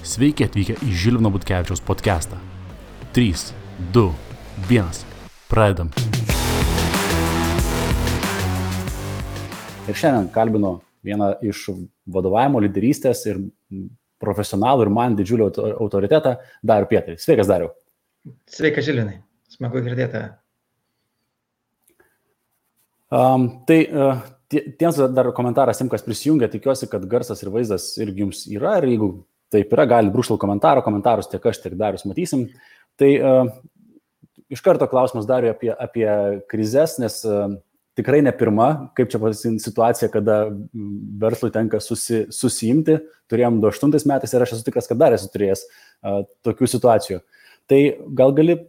Sveiki atvykę į Žilvino Butkevičiaus podcastą. 3, 2, 1. Pradedam. Ir šiandien kalbinu vieną iš vadovavimo, lyderystės ir profesionalų ir man didžiulį autoritetą, Darių Pietrį. Sveikas, Dariau. Sveikas, Žilvinai. Smagu girdėti. Tiems dar komentaras, kas prisijungia, tikiuosi, kad garsas ir vaizdas irgi jums yra. Ir jeigu taip yra, gali brūkštelti komentarus tiek aš, tiek Darius matysim. Tai iš karto klausimas Dariui apie krizes, nes tikrai ne pirma, kaip čia situacija, kada verslui tenka susiimti. Turėjom 2008 metais ir aš esu tikras, kad dar esu turėjęs tokių situacijų. Tai gal gali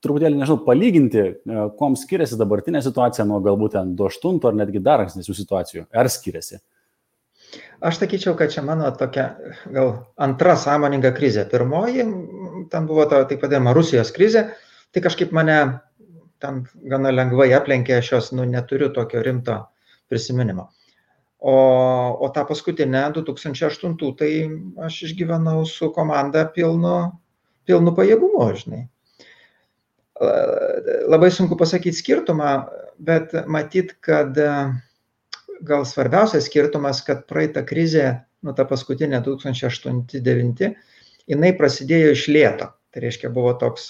truputėlį, palyginti, kuom skiriasi dabartinė situacija nuo galbūt 2008 ar netgi dar ankstesnių situacijų. Ar skiriasi? Aš sakyčiau, kad čia mano tokia gal antra sąmoninga krizė. Pirmoji, ten buvo taip vadinama Rusijos krizė, tai kažkaip mane ten gana lengvai aplenkė, aš jos neturiu tokio rimto prisiminimo. O tą paskutinę 2008, tai aš išgyvenau su komanda pilnu pajėgumu, žinai. Labai sunku pasakyti skirtumą, bet matyt, kad gal svarbiausias skirtumas, kad praeitą krizę, ta paskutinė 2008-2009, jinai prasidėjo iš lėto. Tai reiškia, buvo toks,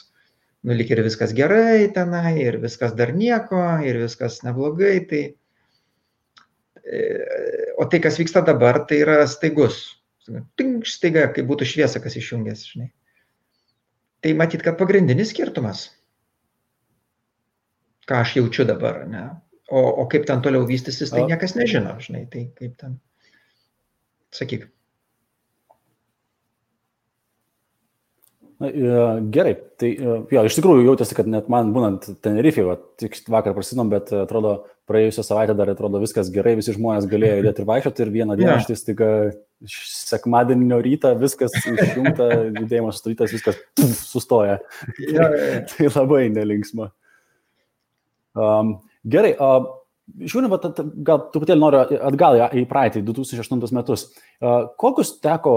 lyg ir viskas gerai tenai, ir viskas dar nieko, ir viskas neblogai. O tai, kas vyksta dabar, tai yra staigus. Staiga, kaip būtų šviesa, kas išjungęs, žinai. Tai matyt, kad pagrindinis skirtumas, ką aš jaučiu dabar, ne? O kaip ten toliau vystysis, tai niekas nežino, žinai, tai kaip ten, sakyk. Gerai, tai jo, iš tikrųjų jautėsi, kad net man būnant Tenerifėje, tik vakar prasinom, bet atrodo, praėjusią savaitę dar atrodo viskas gerai, visi žmonės galėjo judėti ir vaikščioti ir vieną dieną štai staiga sekmadienio rytą viskas išjungta, judėjimas sustarytas, viskas sustoja. Tai labai nelinksma. Gerai, žiūrėjau, gal truputėlį noriu atgal į praeitį, 2008 metus. Kokius teko,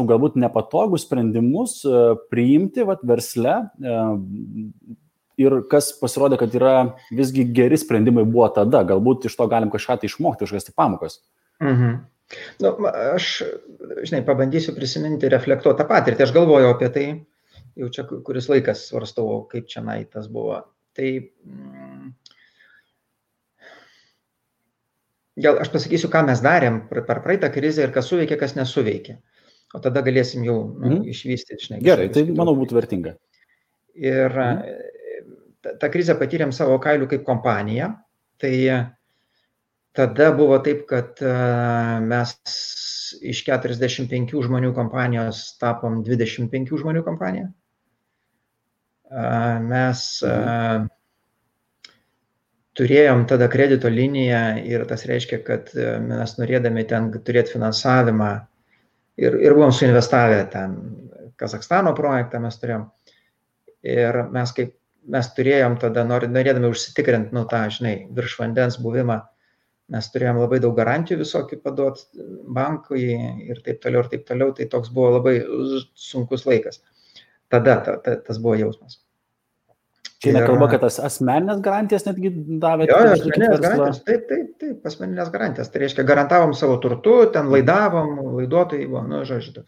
galbūt nepatogus sprendimus priimti versle ir kas pasirodė, kad yra visgi geri sprendimai buvo tada, galbūt iš to galim kažką tai išmokti, kažkas pamokas? Aš, pabandysiu prisiminti, reflektuoti tą patirtį. Aš galvoju apie tai, jau čia kuris laikas svarstau, kaip čia tas buvo. Tai gal aš pasakysiu, ką mes darėm per praeitą krizę ir kas suveikė, kas nesuveikė. O tada galėsim jau išvystyti. Gerai, tai manau būtų vertinga. Ir tą krizę patyrėm savo kailių kaip kompanija. Tai tada buvo taip, kad mes iš 45 žmonių kompanijos tapom 25 žmonių kompanija. Mes turėjom tada kredito liniją ir tas reiškia, kad mes norėdami ten turėti finansavimą ir buvom suinvestavę ten Kazachstano projektą mes turėjom. Ir mes turėjom tada, norėdami užsitikrinti, virš vandens buvimą, mes turėjom labai daug garantijų visokių paduoti bankui ir taip toliau. Tai toks buvo labai sunkus laikas. Tada tas buvo jausmas. Čia nekalba, kad tas asmeninės garantijas netgi davė? Jo, asmeninės garantijas, taip, asmeninės garantijas. Tai reiškia, garantavom savo turtu, ten laidavom, laiduotojai buvo, žodžiu.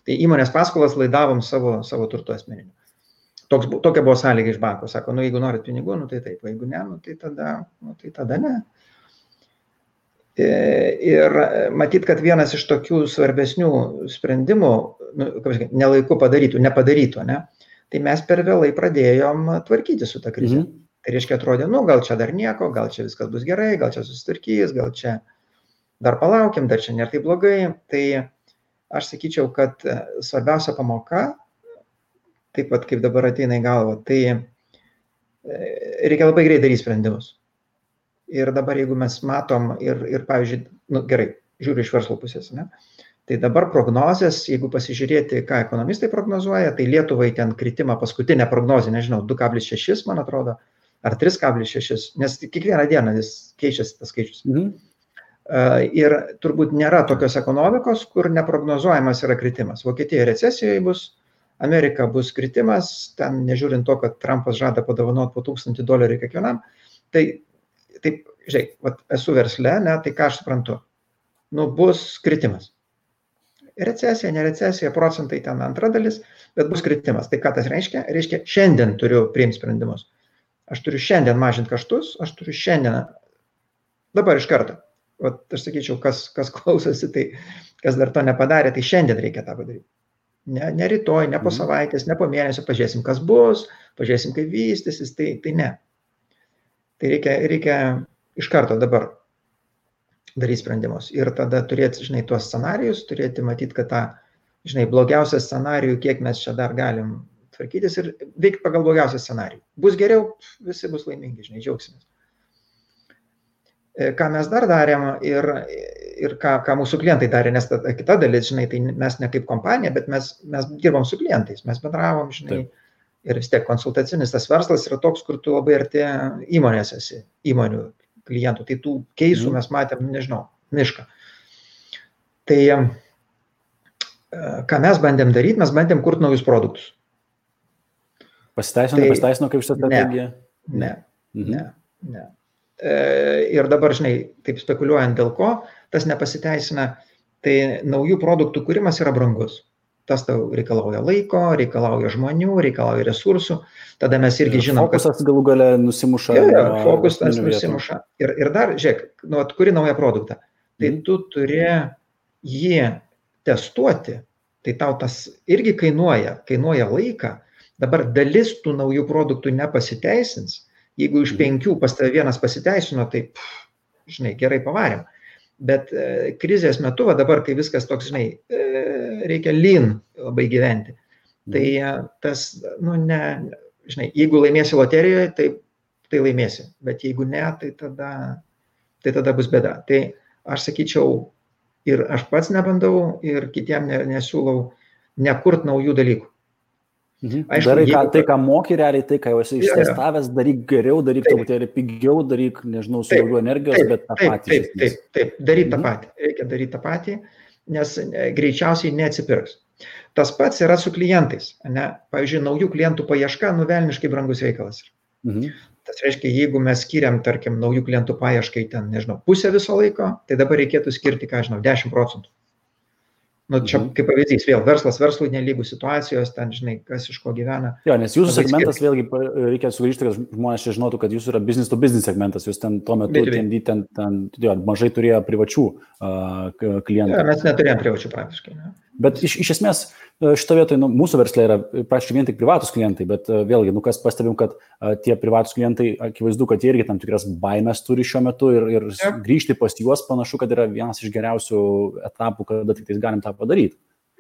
Tai įmonės paskolas laidavom savo turtu asmeniniu. Tokia buvo sąlyga iš banko. Sako, jeigu norit pinigų, tai taip, jeigu ne, tai tada ne. Ir matyt, kad vienas iš tokių svarbesnių sprendimų, nelaiku nepadarytų, ne? Tai mes per vėlai pradėjom tvarkyti su tą krizę. Tai reiškia, atrodė, gal čia dar nieko, gal čia viskas bus gerai, gal čia susitvarkys, gal čia dar palaukim, dar čia nėra taip blogai. Tai aš sakyčiau, kad svarbiausia pamoka, taip pat kaip dabar ateina į galvą, tai reikia labai greit daryti sprendimus. Ir dabar, jeigu mes matom ir pavyzdžiui, gerai, žiūriu iš verslo pusės, ne? Tai dabar prognozės, jeigu pasižiūrėti, ką ekonomistai prognozuoja, tai Lietuvai ten kritimą paskutinę prognozę, 2,6, man atrodo, ar 3,6, nes kiekvieną dieną jis keičiasi tas skaičius. Ir turbūt nėra tokios ekonomikos, kur neprognozuojamas yra kritimas. Vokietija recesijoje bus, Amerika bus kritimas, ten nežiūrint to, kad Trumpas žada padovanoti po $1000 kiekvienam. Tai taip, žiūrėk, esu versle, ne, tai ką aš suprantu? Bus kritimas. Recesija, ne recesija, procentai ten antra dalis, bet bus kritimas. Tai ką tas reiškia? Reiškia, šiandien turiu priimti sprendimus. Aš turiu šiandien mažinti kaštus, aš turiu šiandien, dabar iš karto. Aš sakyčiau, kas klausosi, tai kas dar to nepadarė, tai šiandien reikia tą padaryti. Ne rytoj, ne po savaitės, ne po mėnesio, pažiūrėsim, kas bus, pažiūrėsim, kaip vystysis, tai ne. Tai reikia iš karto dabar daryti sprendimus. Ir tada turėti, tuos scenarijus, turėti matyti, kad tą, blogiausią scenarijų, kiek mes čia dar galim tvarkytis ir veikti pagal blogiausią scenarijų. Bus geriau, visi bus laimingi, džiaugsimės. Ką mes dar darėm ir ką mūsų klientai darė, nes kita dalis, tai mes ne kaip kompanija, bet mes dirbam su klientais, mes bendravom, ir vis tiek konsultacinis tas verslas yra toks, kur tu labai arti įmonės esi, įmonių klientų, tai tų keisų mes matėm, mišką. Tai ką mes bandėm daryti, mes bandėm kurti naujus produktus. Pasiteisino kaip šitą strategiją? Ne. Ir dabar, taip spekuliuojant dėl ko, tas nepasiteisina, tai naujų produktų kūrimas yra brangus. Tas tau reikalauja laiko, reikalauja žmonių, reikalauja resursų. Tada mes irgi žinom, kad... Fokusas galų gale nusimuša. Fokusas nusimuša. Ir dar, žiūrėk, kuri naują produktą, tai tu turi jį testuoti, tai tau tas irgi kainuoja laiką. Dabar dalis tų naujų produktų nepasiteisins. Jeigu iš 5 pas tave vienas pasiteisino, tai, gerai pavarėm. Bet krizės metu, dabar, kai viskas toks, reikia lean labai gyventi. Tai tas, jeigu laimėsi loterijoje, tai laimėsi. Bet jeigu ne, tai tada bus bėda. Tai aš sakyčiau, ir aš pats nebandau, ir kitiem nesiūlau nekurt naujų dalykų. Aišku, darai tai, ką moki realiai, tai, ką jau esi ištestavęs, daryk geriau, daryk truputėlį pigiau, daryk, su daugiau energijos, bet tą patį. Taip, daryk tą patį. Reikia daryti tą patį, nes greičiausiai neatsipirks. Tas pats yra su klientais. Pavyzdžiui, naujų klientų paieška, velniškai brangus reikalas. Tas reiškia, jeigu mes skiriam, tarkim, naujų klientų paieškai, pusę viso laiko, tai dabar reikėtų skirti, 10%. Čia kaip pavyzdys, vėl verslas verslui nelygų situacijos, ten, kas iš ko gyvena. Jo, nes jūsų segmentas, vėlgi, reikia sugrįžti, kad žmonės čia žinotų, kad jūsų yra business to business segmentas, jūs ten tuo metu mažai turėjo privačių klientų. Ja, mes neturėjom privačių praktiškai. Ne? Bet iš esmės šito vietoje, mūsų versle yra praktiškai vien tik privatus klientai, bet vėlgi, kas pastebim, kad tie privatus klientai, akivaizdu, kad jie irgi tam tikras baimės turi šiuo metu ir grįžti pas juos panašu, kad yra vienas iš geriausių etapų, kada tik galim tą padaryti.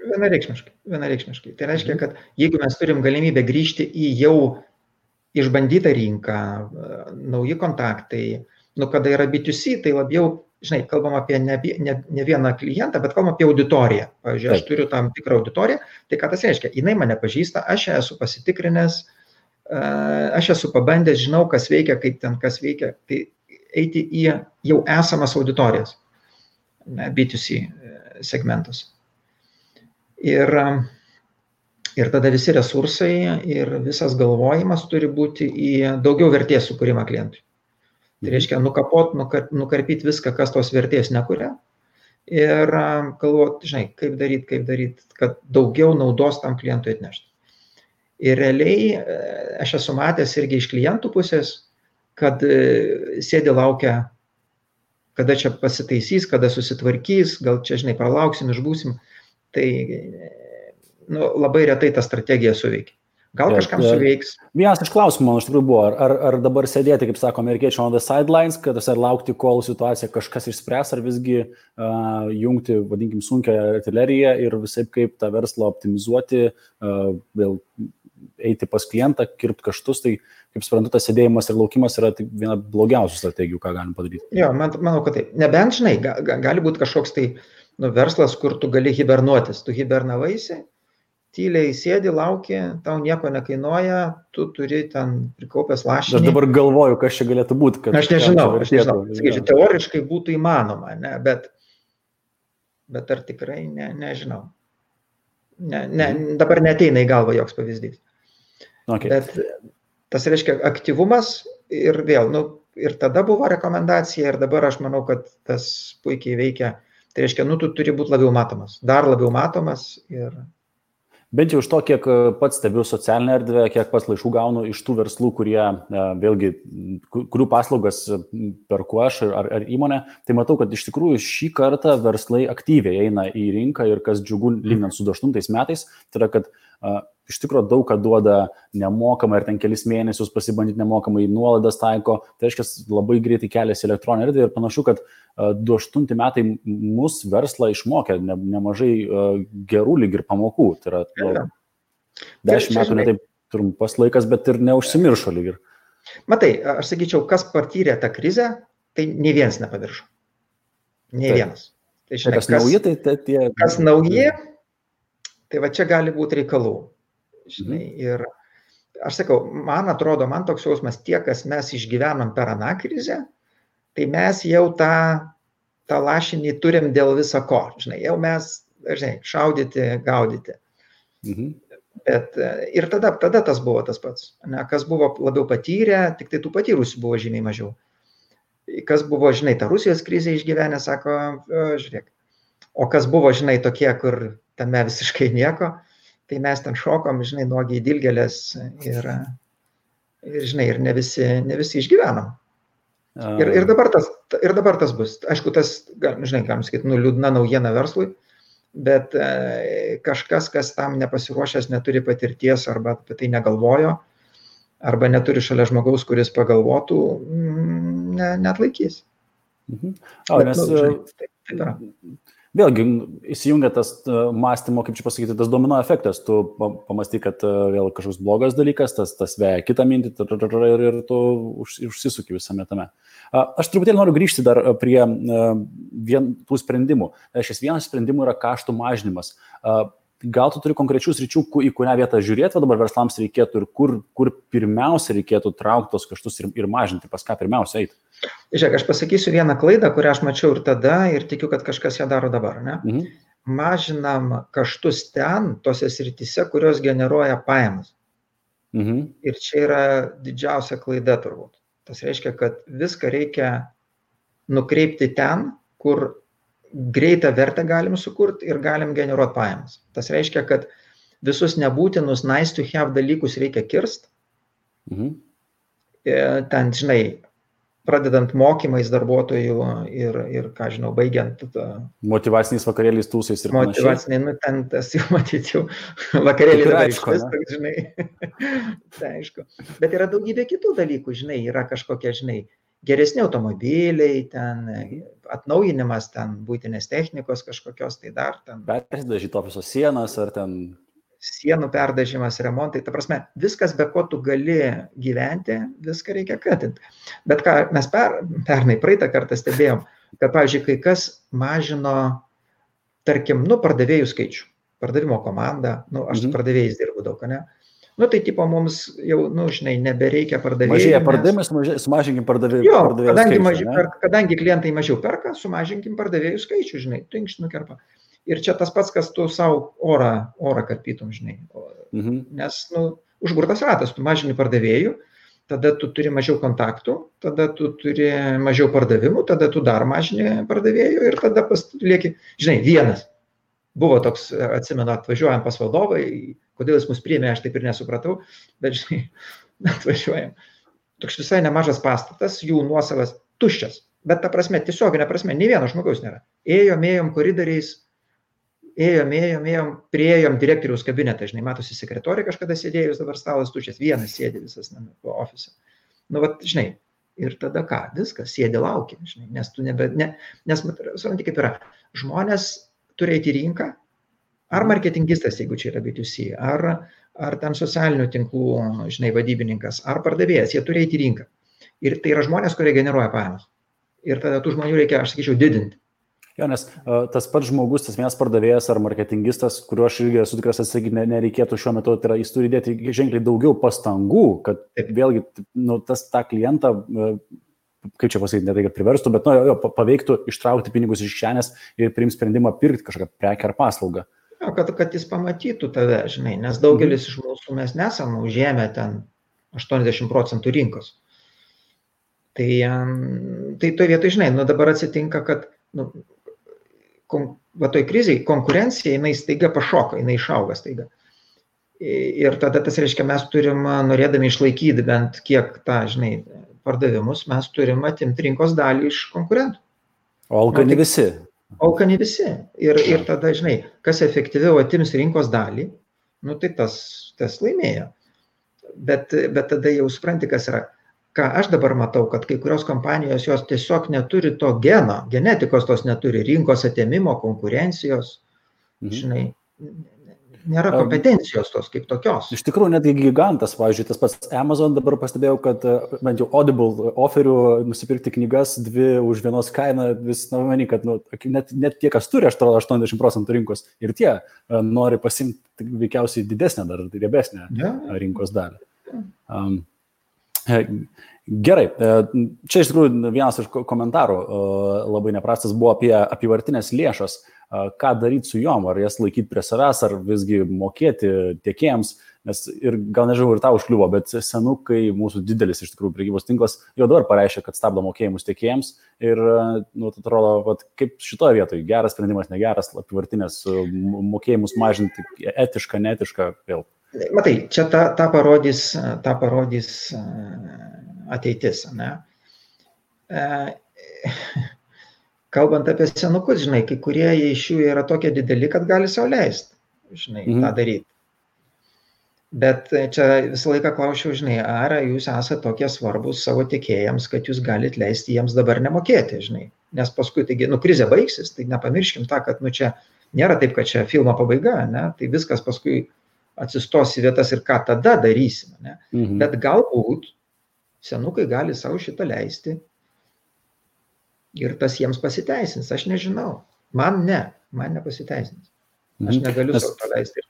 Vienareikšmiškai. Tai reiškia, kad jeigu mes turim galimybę grįžti į jau išbandytą rinką, nauji kontaktai, kada yra B2C, tai labiau, kalbam apie ne vieną klientą, bet kalbam apie auditoriją. Pavyzdžiui, aš turiu tam tikrą auditoriją, tai ką tas reiškia? Jinai mane pažįsta, aš esu pasitikrinęs, aš esu pabandęs, žinau, kas veikia, kaip ten kas veikia, tai eiti į jau esamas auditorijas, B2C segmentus. Ir tada visi resursai ir visas galvojimas turi būti į daugiau vertės sukūrimą klientui. Tai reiškia nukarpyti viską, kas tos vertės nekuria ir galvoti, kaip daryti, kad daugiau naudos tam klientui atnešti. Ir realiai aš esu matęs irgi iš klientų pusės, kad sėdi laukia, kada čia pasitaisys, kada susitvarkys, gal čia, pralauksim, išbūsim. Tai labai retai ta strategija suveikia. Gal kažkam suveiks. Vienas iš klausimų, man iš tikrųjų buvo, ar dabar sėdėti, kaip sako amerikiečiai, on the sidelines, kad ar laukti, kol situacija kažkas išspręs, ar visgi jungti, vadinkim, sunkią artileriją ir visaip kaip tą verslą optimizuoti, vėl eiti pas klientą, kirpti kaštus, tai, kaip suprantu, tas sėdėjimas ir laukimas yra viena blogiausių strategijų, ką galim padaryti. Jo, manau, kad taip. Nebent, gali būti kažkoks tai verslas, kur tu gali hibernuotis. Tu hibernavaisi tyliai sėdi, lauki, tau nieko nekainuoja, tu turi ten prikaupęs lašinį. Aš dabar galvoju, kas čia galėtų būti. Aš nežinau. Sakyčiau, teoriškai būtų įmanoma, ne, bet ar tikrai nežinau. Dabar neteina į galvą joks pavyzdys. Okay. Bet tas reiškia aktyvumas ir vėl, ir tada buvo rekomendacija ir dabar aš manau, kad tas puikiai veikia. Tai reiškia, tu turi būti labiau matomas, dar labiau matomas ir... Bent jau iš to, kiek pats stebiu socialinę erdvę, kiek pats laiškų gaunu iš tų verslų, kurie, vėlgi, kurių paslaugas perku aš ar įmonė, tai matau, kad iš tikrųjų šį kartą verslai aktyviai eina į rinką ir kas džiugu lyginant su 2008 metais, tai yra, kad iš tikrųjų daug ką duoda nemokamai ir ten kelis mėnesius pasibandyti nemokamai, nuolaidas taiko, tai reiškia labai greitai keliasi elektroninė erdvė ir panašu, kad 2008 metai mus verslą išmokė nemažai gerų lyg ir pamokų, tai yra 10 metų ne taip trumpas laikas, bet ir neužsimiršo lyg ir. Matai, aš sakyčiau, kas patyrė tą krizę, tai nei vienas nepaviršo. Nei vienas. Tai, žinai, kas nauji, tai tie... Kas nauji, tai va čia gali būti reikalų. Žinai, ir aš sakau, man atrodo, man toks jausmas, tie, kas mes išgyvenom per aną krizę, tai mes jau tą lašinį turim dėl viso ko. Žinai, jau mes, šaudyti, gaudyti. Bet ir tada tas buvo tas pats. Ne, kas buvo labiau patyrę, tik tai tų patyrusių buvo žymiai mažiau. Kas buvo, žinai, tą Rusijos krizę išgyvenę, sako, žiūrėk. O kas buvo, žinai, tokie, kur tame visiškai nieko, tai mes ten šokom, žinai, nuogiai dilgelės ir žinai, ir ne visi išgyvenom. Ir dabar tas bus. Aišku, tas, žinai, galim sakyti, liūdna naujiena verslui, bet kažkas, kas tam nepasiruošęs, neturi patirties arba apie tai negalvojo, arba neturi šalia žmogaus, kuris pagalvotų, neatlaikys. Taip yra. Vėlgi, įsijungia tas mąstymo, kaip čia pasakyti, tas domino efektas. Tu pamąstai, kad vėl kažkoks blogas dalykas, tas veja kitą mintį ir tu užsisuki visame tame. Aš truputėlį noriu grįžti dar prie tų sprendimų. Šis vienas sprendimų yra kaštų mažinimas. Gal tu turi konkrečių sričių, į kurią vietą žiūrėti, dabar verslams reikėtų ir kur pirmiausia reikėtų traukti tos kaštus ir mažinti, pas ką pirmiausia eiti? Žiūrėk, aš pasakysiu vieną klaidą, kurią aš mačiau ir tada ir tikiu, kad kažkas ją daro dabar. Ne? Mažinam kaštus ten, tose srityse, kurios generuoja pajamas. Ir čia yra didžiausia klaida turbūt. Tas reiškia, kad viską reikia nukreipti ten, kur greitą vertę galim sukurti ir galim generuoti pajamas. Tas reiškia, kad visus nebūtinus nice to have dalykus reikia kirst. Ten, žinai, pradedant mokymais darbuotojų ir ką žinau, baigiant... Motyvaciniais vakarėliais, tūsais ir panašiai. Motyvaciniai, ten tas jau matyčiau, vakarėliai dabar išvis, žinai. Tai aišku. Bet yra daugybė kitų dalykų, žinai, yra kažkokie, žinai, geresni automobiliai, ten atnaujinimas, ten būtinės technikos kažkokios, tai dar ten... Perdažyti ofiso sienas ar ten... Sienų perdažimas, remontai, ta prasme, viskas, be ko tu gali gyventi, viską reikia katinti. Bet ką mes praeitą kartą stebėjom, kad, pavyzdžiui, kai kas mažino, tarkim, pardavėjų skaičių, pardavimo komandą, aš su pardavėjais dirbu daug, ne? Tai tipo mums jau, žinai, nebereikia pardavėjų. Mažėja pardavimai, sumažinkim pardavėjų skaičių. Kadangi klientai mažiau perka, sumažinkim pardavėjų skaičių, žinai, tinkš nukerpa. Ir čia tas pats, kas tu savo orą karpytum, žinai. Nes, užburtas ratas, tu mažini pardavėjų, tada tu turi mažiau kontaktų, tada tu turi mažiau pardavimų, tada tu dar mažini pardavėjų ir tada lieki, žinai, vienas. Buvo toks, atsimenu, atvažiuojam pas vadovai, kodėl jis mus priėmė, aš taip ir nesupratau, bet, žinai, atvažiuojam. Toks visai nemažas pastatas, jų nuosavas tuščias, bet ta prasme, tiesioginė prasme, nei vieno žmogaus nėra. Ėjom koridoriais, ėjom, priėjom direktoriaus kabinetą, žinai, matosi sekretorė kažkada sėdėjus, dabar stalas tuščias, vienas sėdi visas ofise. Žinai, ir tada ką, viskas, sėdi laukia, žinai, nes tu nes supranti, kaip yra, žmonės turi eiti į rinką, ar marketingistas, jeigu čia yra B2C, ar ten socialinių tinklų, žinai, vadybininkas, ar pardavėjas, jie turi eiti į rinką. Ir tai yra žmonės, kurie generuoja pajamas. Ir tada tų žmonių reikia, aš sakyčiau, didinti. Jo, nes tas pats žmogus, tas vienas pardavėjas ar marketingistas, kuriuo aš irgi esu tikras atsakyti nereikėtų šiuo metu, tai yra, jis turi dėti ženkliai daugiau pastangų, kad vėlgi tą klientą, kaip čia pasakyti, ne tai, kad priverstų, bet paveiktų ištraukti pinigus iš kišenės ir priimti sprendimą pirkti kažkokią prekę ar paslaugą. Jo, kad jis pamatytų tave, žinai, nes daugelis iš mūsų mes nesame užėmę ten 80% rinkos. Tai to vietoj, žinai, dabar atsitinka, kad toj krizėj konkurencija, jinai staiga pašoka, jinai išauga staiga. Ir tada tas reiškia, mes turim, norėdami išlaikyti bent kiek tą, žinai, pardavimus, mes turim atimti rinkos dalį iš konkurentų. O alkani visi. Alkani visi. Ir tada, žinai, kas efektyviau atims rinkos dalį, tai tas laimėjo. Bet tada jau supranti, kas yra. Ką aš dabar matau, kad kai kurios kompanijos jos tiesiog neturi to geno, genetikos tos neturi, rinkos atėmimo, konkurencijos, žinai, nėra kompetencijos tos kaip tokios. Iš tikrųjų, netgi gigantas, pavyzdžiui, tas pats Amazon dabar pastebėjau, kad bent jau Audible oferių nusipirkti knygas 2 už vienos kainą, vis manį, kad net tie, kas turi 80% rinkos ir tie nori pasimti veikiausiai didesnę dar riebesnę rinkos dalį. Gerai, čia iš tikrųjų vienas iš komentarų labai neprastas buvo apie apyvartinės lėšas, ką daryti su jom, ar jas laikyti prie savęs, ar visgi mokėti tiekėjams, nes ir gal nežinau, ir tau užkliuvo, bet Senukai, mūsų didelis iš tikrųjų prekybos tinklas, jau dabar pareiškia, kad stabdo mokėjimus tiekėjams ir, atrodo, kaip šitoje vietoje, geras sprendimas, negeras, apyvartinės mokėjimus mažinti, etiška, neetiška, vėl. Matai, čia tą parodys ateitis, ne? Kalbant apie senukus, žinai, kai kurie iš jų yra tokie dideli, kad gali sau leisti, žinai, tą daryti. Bet čia visą laiką klausiau, žinai, ar jūs esate tokie svarbus savo tiekėjams, kad jūs galite leisti jiems dabar nemokėti, žinai. Nes paskui, taigi, krizė baigsis, tai nepamirškim tą, kad, čia nėra taip, kad čia filmo pabaiga, ne? Tai viskas paskui atsistos į vietas ir ką tada darysime. Ne? Bet galbūt senukai gali savo šitą leisti ir tas jiems pasiteisins. Aš nežinau. Man nepasiteisins. Aš negaliu savo to leisti.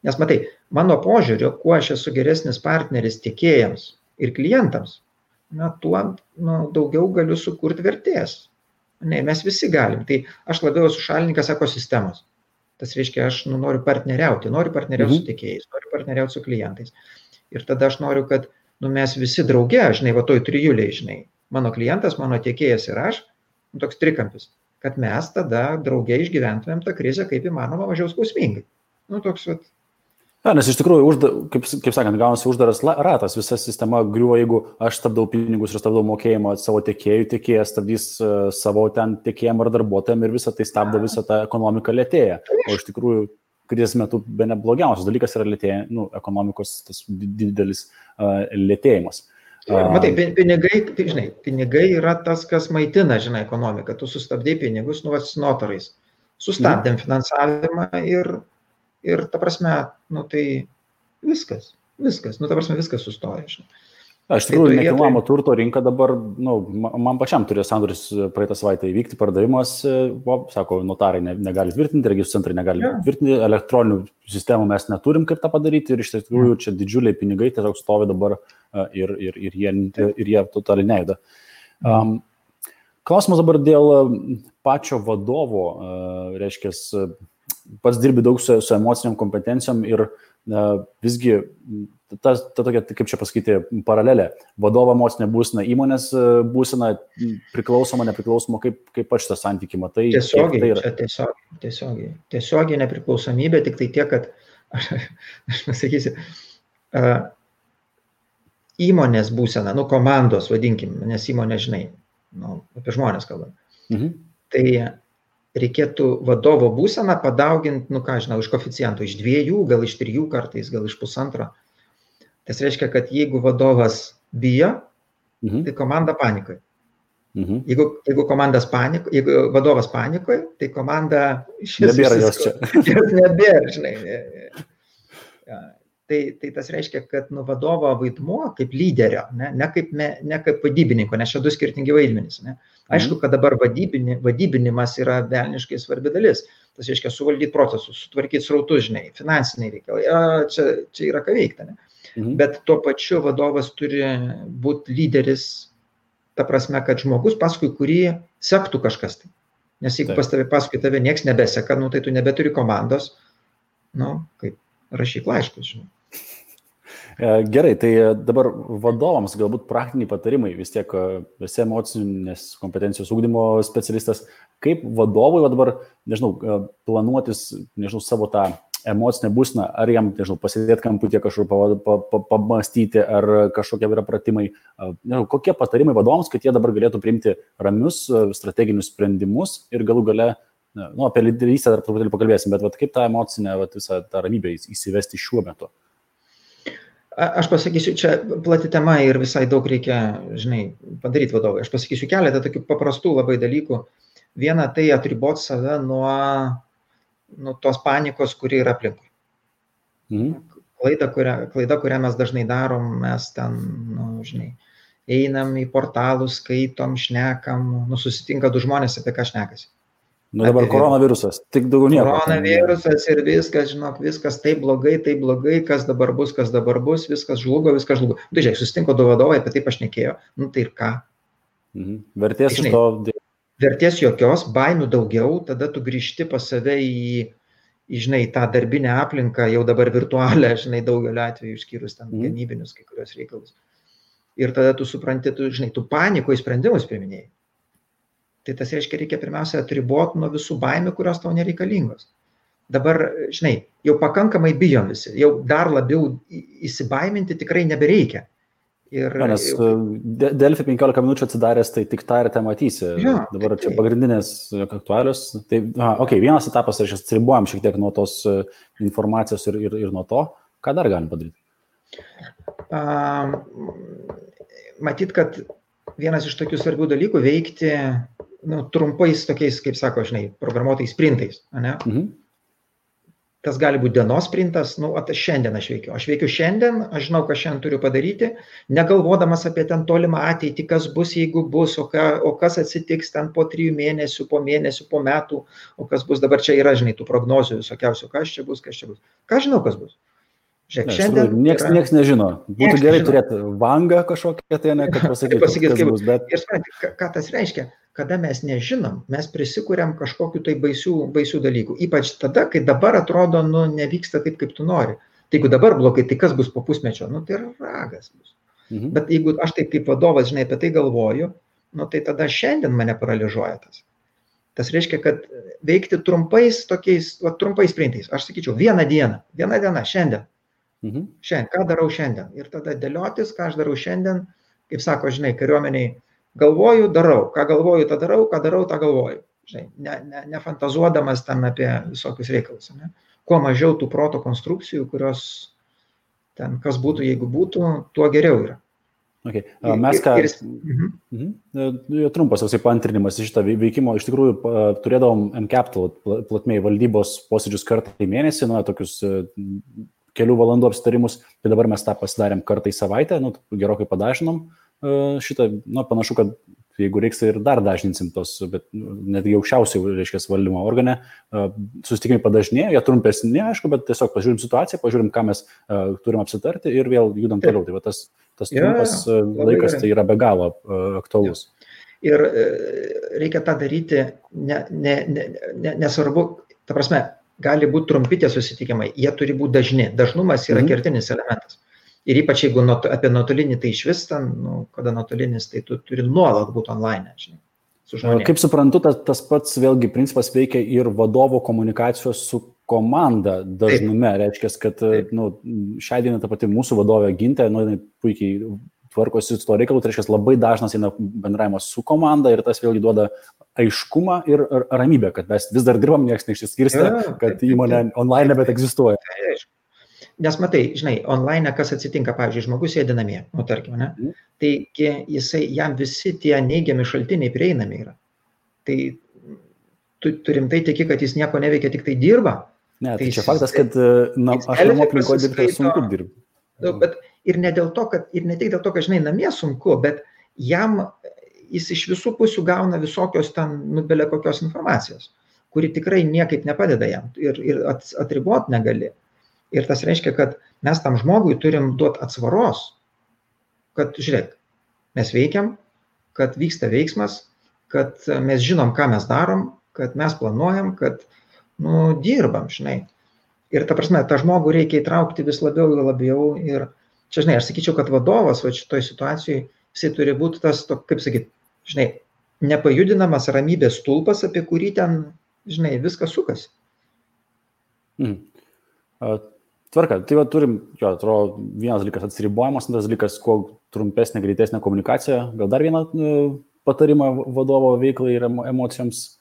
Nes matai, mano požiūriu, kuo aš esu geresnis partneris tiekėjams ir klientams, tuo daugiau galiu sukurti vertės. Mes visi galim. Tai aš labiau esu šalininkas ekosistemos. Tas reiškia, aš noriu partneriauti su tiekėjais, noriu partneriauti su klientais. Ir tada aš noriu, kad mes visi drauge, žinai, toj trijuliai, žinai, mano klientas, mano tiekėjas ir aš, toks trikampis, kad mes tada drauge išgyventumėm tą krizę kaip įmanoma mažiau skausmingai. Toks vat. Nes iš tikrųjų, kaip sakant, gaunasi uždaras ratas, visa sistema griuvo, jeigu aš stabdau pinigus ir stabdau mokėjimą savo tiekėjų, tiekėjas stabdys savo ten tiekėjim ar darbuotojam ir visą tai stabdo, visą tą ekonomiką lėtėja. O iš tikrųjų, krizės metu be neblogiausias dalykas yra lėtėja, ekonomikos tas didelis lėtėjimas. Matai, pinigai yra tas, kas maitina, žinai, ekonomiką. Tu sustabdai pinigus, notarais. Sustabdėm finansavimą ir ta prasme, tai viskas, ta prasme, viskas sustoja. Iš tikrųjų, nekilnojamo turto rinka dabar, man pačiam turėjo sandoris praeitą savaitę įvykti, pardavimas, sako, notarai negali tvirtinti, registrų centrai negali tvirtinti, elektroninių sistemų mes neturim kaip tą padaryti ir iš tikrųjų čia didžiuliai pinigai tiesiog stovi dabar ir jie totaliai nejuda. Klausimas dabar dėl pačio vadovo, reiškia, pats dirbi daug su emociniam kompetencijom ir visgi ta tokia, kaip čia pasakyti, paralelė. Vadovo emocinė būsena, įmonės būsena, priklausoma, nepriklausoma, kaip aš tą santykį matai. Tiesiogiai nepriklausomybė, tik tai tiek, kad, aš pasakysiu, įmonės būsena, komandos, vadinkim, nes įmonė, žinai, apie žmonės kalbam. Tai reikėtų vadovo būseną padauginti, iš koeficiento, iš 2, gal iš 3 kartais, gal iš 1,5. Tas reiškia, kad jeigu vadovas bijo, tai komanda panikoje. Jeigu vadovas panikoje, tai komanda nebėra jos čia. Nebėra, žinai. Tai tas reiškia, kad vadovo vaidmuo kaip lyderio, ne kaip vadybininko, nes čia 2 skirtingi vaidmenys. Ne? Aišku, kad dabar vadybinimas yra velniškai svarbi dalis. Tas reiškia suvaldyti procesus, sutvarkyti srautus, žinai, finansiniai reikalai. Čia yra ką veikti, ne? Bet tuo pačiu vadovas turi būti lyderis, ta prasme, kad žmogus, paskui kurį sektų kažkas tai. Nes jeigu paskui tave nieks nebeseka, tai tu nebeturi komandos, kaip rašyk laiškus, žinai. Gerai, tai dabar vadovams galbūt praktiniai patarimai, vis tiek esi emocinės kompetencijos ugdymo specialistas, kaip vadovui dabar, planuotis, savo tą emocinę būseną, ar jam, pasidėti kamputį kažkur pamastyti, ar kažkokie yra pratimai, kokie patarimai vadovams, kad jie dabar galėtų priimti ramius strateginius sprendimus ir galų gale, apie lyderystę dar truputėlį pakalbėsim, bet kaip tą emocinę, visą tą ramybę įsivesti šiuo metu? Aš pasakysiu, čia plati tema ir visai daug reikia, padaryti vadovai. Aš pasakysiu keletą tokių paprastų labai dalykų. Viena, tai atriboti save nuo tos panikos, kuri yra aplinkui. Klaida, kurią mes dažnai darom, mes ten, einam į portalus, skaitom, šnekam, susitinka du žmonės, apie ką šnekasi. Dabar koronavirusas, tik daugiau nieko. Koronavirusas ir viskas, viskas taip blogai, kas dabar bus, viskas žlugo. Tai žiūrėk, susitinko du vadovai, apie tai pašnekėjo, tai ir ką? Vertės iš to. Vertės jokios, baimių daugiau, tada tu grįžti pas save į tą darbinę aplinką, jau dabar virtualią, daugelio atveju išskyrus ten gamybinius kai kurios reikalus. Ir tada tu supranti, tu panikoje sprendimus priiminėjai. Tai tas reiškia, reikia pirmiausia atriboti nuo visų baimių, kurios tau nereikalingos. Dabar, jau pakankamai bijom visi, jau dar labiau įsibaiminti tikrai nebereikia. Nes Delfi 15 minučių atsidaręs, tai tik tą ir te matysi. Dabar čia pagrindinės aktualios. Tai, vienas etapas, aš atsiribuojam šiek tiek nuo tos informacijos ir nuo to, ką dar galim padaryti. Matyt, kad vienas iš tokių svarbių dalykų veikti trumpais tokiais, kaip sako, programuotais sprintais. Tas gali būti dienos sprintas, šiandien aš veikiu. Aš veikiu šiandien, aš žinau, ką šiandien turiu padaryti, negalvodamas apie ten tolimą ateitį, kas bus, jeigu bus, o kas atsitiks ten po 3 mėnesių, po mėnesių, po metų, o kas bus. Dabar čia yra, tų prognozių visokiausių, kas čia bus. Ką žinau, kas bus? Žiūrėk, šiandien... Niekas nežino. Būtų gerai turėti vangą kažkokią, tai ne, kad pasakyti, kas bus. Bet... Ir supranti, ką tas reiškia? Kada mes nežinom, mes prisikuriam kažkokiu tai baisių dalykų. Ypač tada, kai dabar atrodo, nevyksta taip, kaip tu nori. Tai jeigu dabar blogai, tai kas bus po pusmečio? Tai ragas bus. Bet jeigu aš taip kaip vadovas, apie tai galvoju, tai tada šiandien mane paralyžuoja tas. Tas reiškia, kad veikti trumpais sprintais. Aš sakyčiau, viena diena, šiandien. Šiandien, ką darau šiandien? Ir tada dėliotis, ką aš darau šiandien, kaip sako, kariuomeniai, galvoju, darau. Ką galvoju, tą darau, ką darau, tą galvoju. Nefantazuodamas ten apie visokius reikalus. Kuo mažiau tų proto konstrukcijų, kurios ten, kas būtų, jeigu būtų, tuo geriau yra. Okay. Mes ką... Trumpas paantrinimas iš šitą veikimo. Iš tikrųjų, turėdavom M-Capital platmėj valdybos posėdžius kartą į mėnesį, tokius kelių valandų apsitarimus, tai dabar mes tą pasidarėm kartą į savaitę, gerokai padažinom šitą, panašu, kad jeigu reiks, tai ir dar dažninsim tos, bet netgi aukščiausiai, valdymo organe, susitikimai padažnėjo, jie trumpesni, aišku, bet tiesiog pažiūrim situaciją, pažiūrim, ką mes turim apsitarti ir vėl judam toliau. Tai tas trumpas laikas tai yra be galo aktualus. Ir reikia tą daryti, nesvarbu, ta prasme, gali būti trumpi tie susitikimai, jie turi būti dažni. Dažnumas yra kertinis elementas. Ir ypač jeigu apie nuotolinį, tai iš vis ten, kada nuotolinis, tai tu turi nuolat būti online, su žmonėmis. Kaip suprantu, tas pats vėlgi principas veikia ir vadovo komunikacijos su komanda dažnume. Reiškia, kad šią dieną ta pati mūsų vadovė Gintė, puikiai tvarkosi su to reikalu, tai reiškia, labai dažnas eina bendravimas su komanda ir tas vėlgi duoda aiškumą ir ramybę, kad mes vis dar dirbam, niekas neišsiskirstė, kad įmonė online nebet egzistuoja. Nes matai, online kas atsitinka, pavyzdžiui, žmogus sėdi namie, tarkim, tai jam visi tie neigiami šaltiniai prieinami yra. Tai turim tai tiki, kad jis nieko neveikia, tik tai dirba. Ne, tai čia faktas, kad aš namų aplinkoje dirbti sunku dirbti. Bet ir ne tik dėl to, kad namie sunku, bet jam jis iš visų pusių gauna visokios ten, belė kokios informacijos, kuri tikrai niekaip nepadeda jam ir atribot negali. Ir tas reiškia, kad mes tam žmogui turim duoti atsvaros, kad, žiūrėk, mes veikiam, kad vyksta veiksmas, kad mes žinom, ką mes darom, kad mes planuojam, kad, dirbam, žinai. Ir ta prasme, tą žmogų reikia įtraukti vis labiau ir labiau. Ir čia, žinai, aš sakyčiau, kad vadovas va šitoj situacijai, jisai turi būti tas, kaip sakyt, žinai, nepajudinamas ramybės stulpas, apie kurį ten, žinai, viskas sukasi. Tvarka, tai va turim, atrodo, vienas dalykas atsiribojimas, antras dalykas, kuo trumpesnė, greitesnė komunikacija. Gal dar vieną patarimą vadovo veiklai ir emocijoms?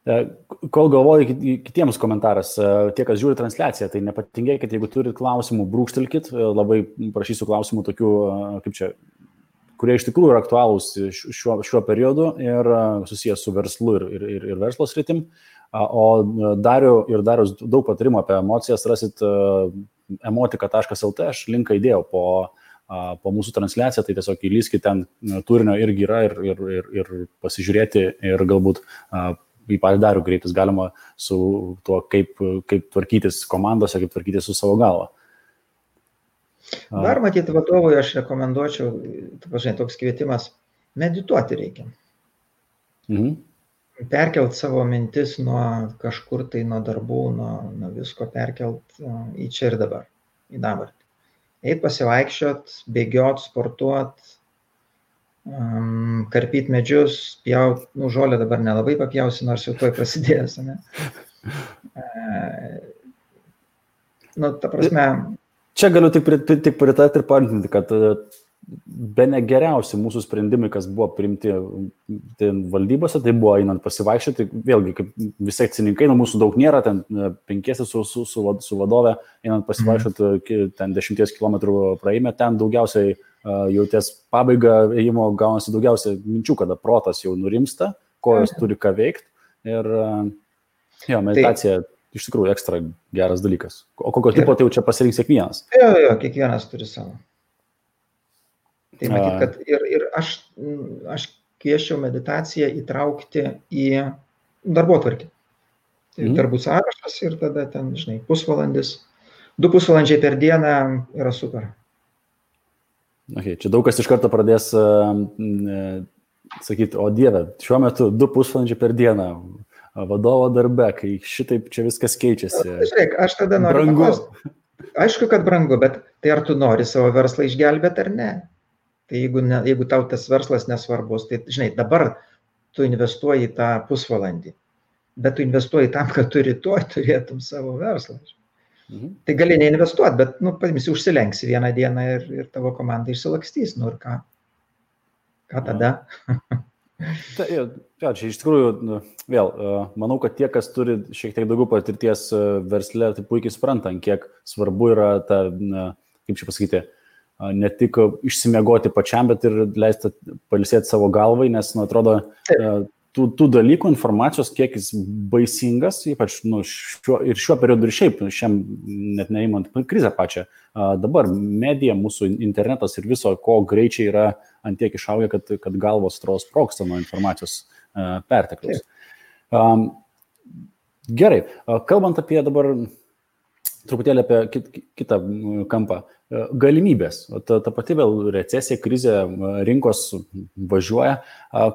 Kol galvoju kitiems komentaras, tie, kas žiūri transliaciją, tai nepatingėkit, jeigu turit klausimų, brūkštelkit, labai prašysiu klausimų tokių, kaip čia, kurie iš tikrųjų yra aktualūs šiuo periodu ir susijęs su verslu ir verslo sritim. O Darius daug patarimų apie emocijas rasit emotika.lt, aš linką įdėjau po mūsų transliaciją, tai tiesiog įlyskit ten, turinio irgi yra ir pasižiūrėti ir galbūt į patį Darių kreiptis galima su tuo, kaip tvarkytis komandose, kaip tvarkytis su savo galva. Dar matyti vadovui aš rekomenduočiau, toks kvietimas, medituoti reikia. Perkelt savo mintis nuo kažkur tai, nuo darbų, nuo visko perkelt į čia ir dabar, į dabartį. Eit pasivaikščiot, bėgiot, sportuot, karpyt medžius, pjaut, žolę dabar nelabai papjausi, nors jau tuoj prasidėjęs, ne? Ta prasme... Čia galiu tik pritarti ir paantinti, kad bene geriausi mūsų sprendimai, kas buvo priimti valdybose, tai buvo einant pasivaikščioti, vėlgi, kaip visi akcininkai, mūsų daug nėra, ten 5 su vadove, einant pasivaikščioti, ten 10 km praeime, ten daugiausiai jau ties pabaiga ėjimo gaunasi daugiausiai minčių, kada protas jau nurimsta, kojos turi ką veikti ir meditacija iš tikrųjų ekstra geras dalykas. O kokio tipo tai jau čia pasirinks kiekvienas? Jo, kiekvienas turi savo. Tai matyt, kad ir aš kviesčiau meditaciją įtraukti į darbotvarkę. Tai darbų sąrašas ir tada ten, žinai, pusvalandis, 2 pusvalandžiai per dieną yra super. Okay, čia daug kas iš karto pradės sakyti, o Dieve, šiuo metu 2 pusvalandžiai per dieną vadovo darbe, kai šitaip čia viskas keičiasi. Žiūrėk, aš tada noriu paklausti. Aišku, kad brangu, bet tai ar tu nori savo verslą išgelbėti ar ne? Tai jeigu tau tas verslas nesvarbus, tai žinai, dabar tu investuoji tą pusvalandį, bet tu investuoji tam, kad tu rytoj turėtum savo verslą. Tai gali neinvestuoti, bet, paimsi, užsilenksi vieną dieną ir tavo komanda išsilakstys, ir ką tada? Čia iš tikrųjų, vėl, manau, kad tie, kas turi šiek tiek daugiau patirties versle, tai puikiai supranta, kiek svarbu yra ta, kaip čia pasakyti, ne tik išsimiegoti pačiam, bet ir leisti pailsėti savo galvai, nes, atrodo, tų dalykų, informacijos kiekis baisingas, ypač šiuo periodu ir šiaip, net neįmant krizę pačią. Dabar medija, mūsų internetas ir viso, ko greičiai yra ant tiek išaugę, kad galvos sprogsta nuo informacijos pertekliaus. Gerai, kalbant apie dabar truputėlį apie kitą kampą. Galimybės. Ta pati vėl recesija, krizė, rinkos važiuoja.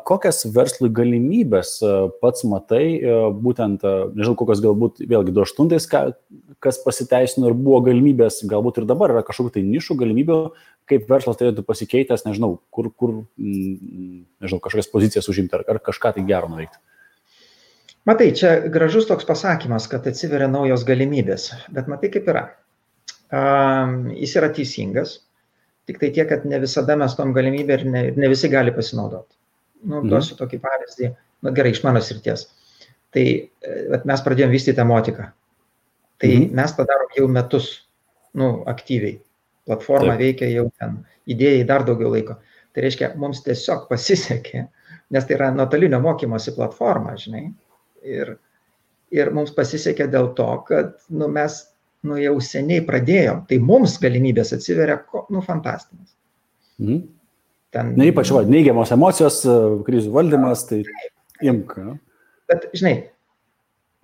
Kokias verslui galimybės pats matai, būtent, nežinau, kokios galbūt vėlgi 2008, kas pasiteisino ir buvo galimybės, galbūt ir dabar yra kažkokių tai nišų galimybių, kaip verslas turėtų pasikeitęs, nežinau, kur nežinau, kažkokias pozicijas užimti ar kažką tai gero nuveikti. Matai, čia gražus toks pasakymas, kad atsiveria naujos galimybės, bet matai kaip yra. Jis yra teisingas, tik tai tiek, kad ne visada mes tom galimybę ir ne visi gali pasinaudoti. Duosiu tokį pavyzdį, gerai, iš mano srities. Tai mes pradėjom vystyti emotiką. Tai mes tą darom jau metus, aktyviai. Platforma veikia jau ten, idėjai dar daugiau laiko. Tai reiškia, mums tiesiog pasisekė, nes tai yra nuotolinio mokymosi platforma, žinai. Ir mums pasisekė dėl to, kad mes jau seniai pradėjom, tai mums galimybės atsiveria, fantastinės. Na, ypač neigiamos emocijos, krizių valdymas, tai imk. Bet, žinai,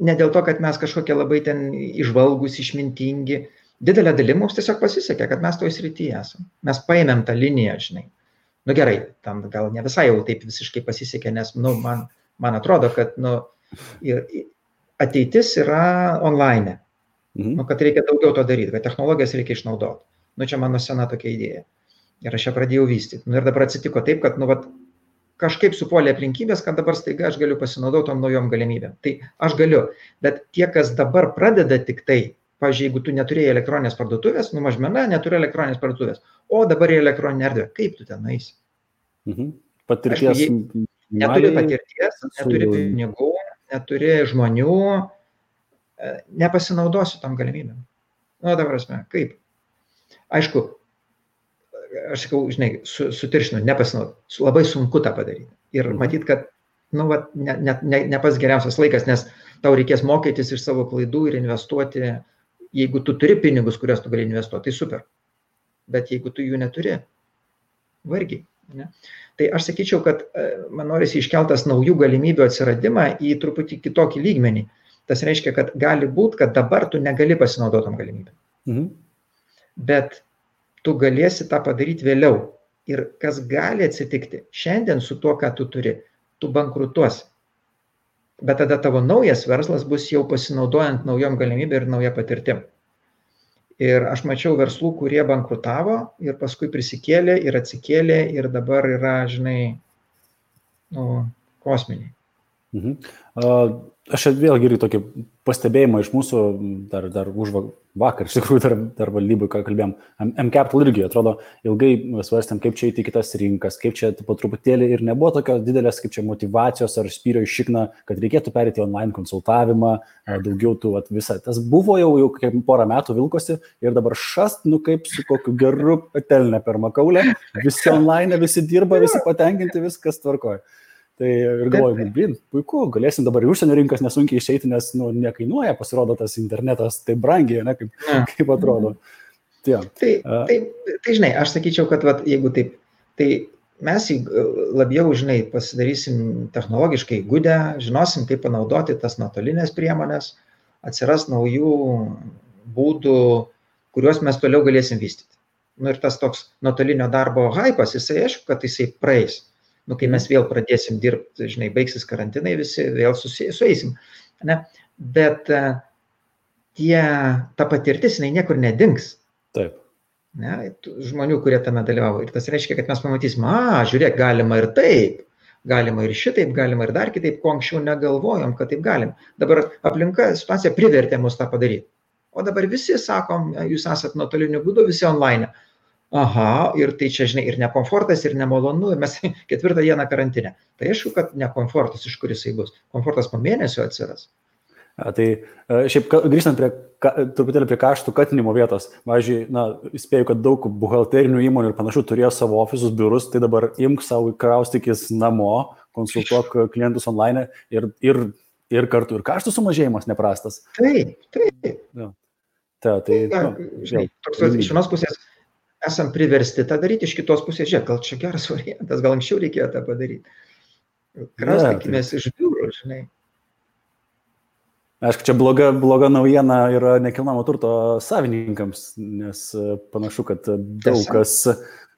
ne dėl to, kad mes kažkokie labai ten išvalgus, išmintingi, didelė dalim mums tiesiog pasisekė, kad mes toj srityje esame. Mes paėmėm tą liniją, žinai. Nu gerai, tam gal ne visai jau taip visiškai pasisekė, nes, nu, man atrodo, kad, nu, ateitis yra online. Nu, kad reikia daugiau to daryti, kad technologijas reikia išnaudoti. Nu, čia mano sena tokia idėja. Ir aš ją pradėjau vystyti. Nu, ir dabar atsitiko taip, kad, nu, vat, kažkaip supuolė aplinkybės, kad dabar staiga aš galiu pasinaudoti tom naujom galimybėm. Tai aš galiu, bet tie, kas dabar pradeda tik tai, pavyzdžiui, jeigu tu neturėjai elektroninės parduotuvės, nu, mažmena neturi elektroninės parduotuvės, o dabar yra elektroninė erdvė, kaip tu ten eisi? Patirties. Aišku, neturi patirties, neturi pinigų, neturi žmonių, nepasinaudosiu tam galimybėm. Nu, dabar asme, kaip? Aišku, aš sakau, žinai, sutiršinu, nepasinaudoti. Labai sunku tą padaryti. Ir matyt, kad, nu, vat, ne pas geriausias laikas, nes tau reikės mokytis iš savo klaidų ir investuoti. Jeigu tu turi pinigus, kuriuos tu gali investuoti, tai super. Bet jeigu tu jų neturi, vargiai. Ne? Tai aš sakyčiau, kad man norisi iškeltas naujų galimybių atsiradimą į truputį kitokį lygmenį. Tas reiškia, kad gali būti, kad dabar tu negali pasinaudotom galimybėm. Bet tu galėsi tą padaryti vėliau. Ir kas gali atsitikti, šiandien su tuo, ką tu turi, tu bankrutuosi. Bet tada tavo naujas verslas bus jau pasinaudojant naujom galimybėm ir nauja patirtim. Ir aš mačiau verslų, kurie bankrutavo ir paskui prisikėlė ir atsikėlė ir dabar yra, žinai, nu, kosminiai. Aš vėlgi irgi tokį pastebėjimą iš mūsų, dar už vakar, iš tikrųjų, dar valdybui, ką kalbėjom, M-Capital irgi, atrodo, ilgai svarstėm, kaip čia įti kitas rinkas, kaip čia po truputėlį ir nebuvo tokios didelės, kaip čia motivacijos ar spyrio iš šikną, kad reikėtų perėti online konsultavimą, daugiau tų visą. Tas buvo jau kaip porą metų vilkosi ir dabar šast, nu kaip su kokiu geru patelne per makaulę, visi online, visi dirba, visi patenkinti, viskas tvarkoja. Tai ir galvoju, puiku, galėsim dabar į užsienio rinkas nesunkiai išeiti, nes nu, nekainuoja, pasirodo tas internetas taip brangiai, ne, kaip atrodo. Tai žinai, aš sakyčiau, kad vat, jeigu taip, tai mes labiau, žinai, pasidarysim technologiškai įgudę, žinosim, kaip panaudoti tas nuotolinės priemonės, atsiras naujų būdų, kuriuos mes toliau galėsim vystyti. Nu ir tas toks nuotolinio darbo hypas, jisai aišku, kad jisai praeis. Nu, kai mes vėl pradėsim dirbti, žinai, baigsis karantinai, visi vėl sueisim. Ne? Bet ta patirtis, jinai niekur nedings. Taip. Ne? Žmonių, kurie tame dalyvavo. Ir tas reiškia, kad mes pamatysim, žiūrėk, galima ir taip, galima ir šitaip, galima ir dar kitaip, ko anksčiau negalvojom, kad taip galim. Dabar aplinka situacija privertė mus tą padaryti. O dabar visi sakom, jūs esat nuotoliniu būdu, visi online. Aha, ir tai čia, žinai, ir nekomfortas, ir nemalonu, ir mes 4 dieną karantinę. Tai aišku, kad nekomfortas, iš kur jisai bus. Komfortas po mėnesio atsiras. Tai šiaip grįžtant truputėlį prie kaštų katinimo vietos, pavyzdžiui, spėju, kad daug buhalterinių įmonių ir panašių turėjo savo ofisus, biurus, tai dabar imk savo kraustykis namo, konsultuok klientus online ir kartu ir kaštų sumažėjimas neprastas. Taip. Žinai, iš vienos pusės esam priversti tą daryti, iš kitos pusės, žiūrėk, gal čia geras variantas, gal anksčiau reikėjo tą padaryti. Kraustykimės iš biurų, žinai. Aišku, čia bloga naujiena yra nekilnojamo turto savininkams, nes panašu, kad daug kas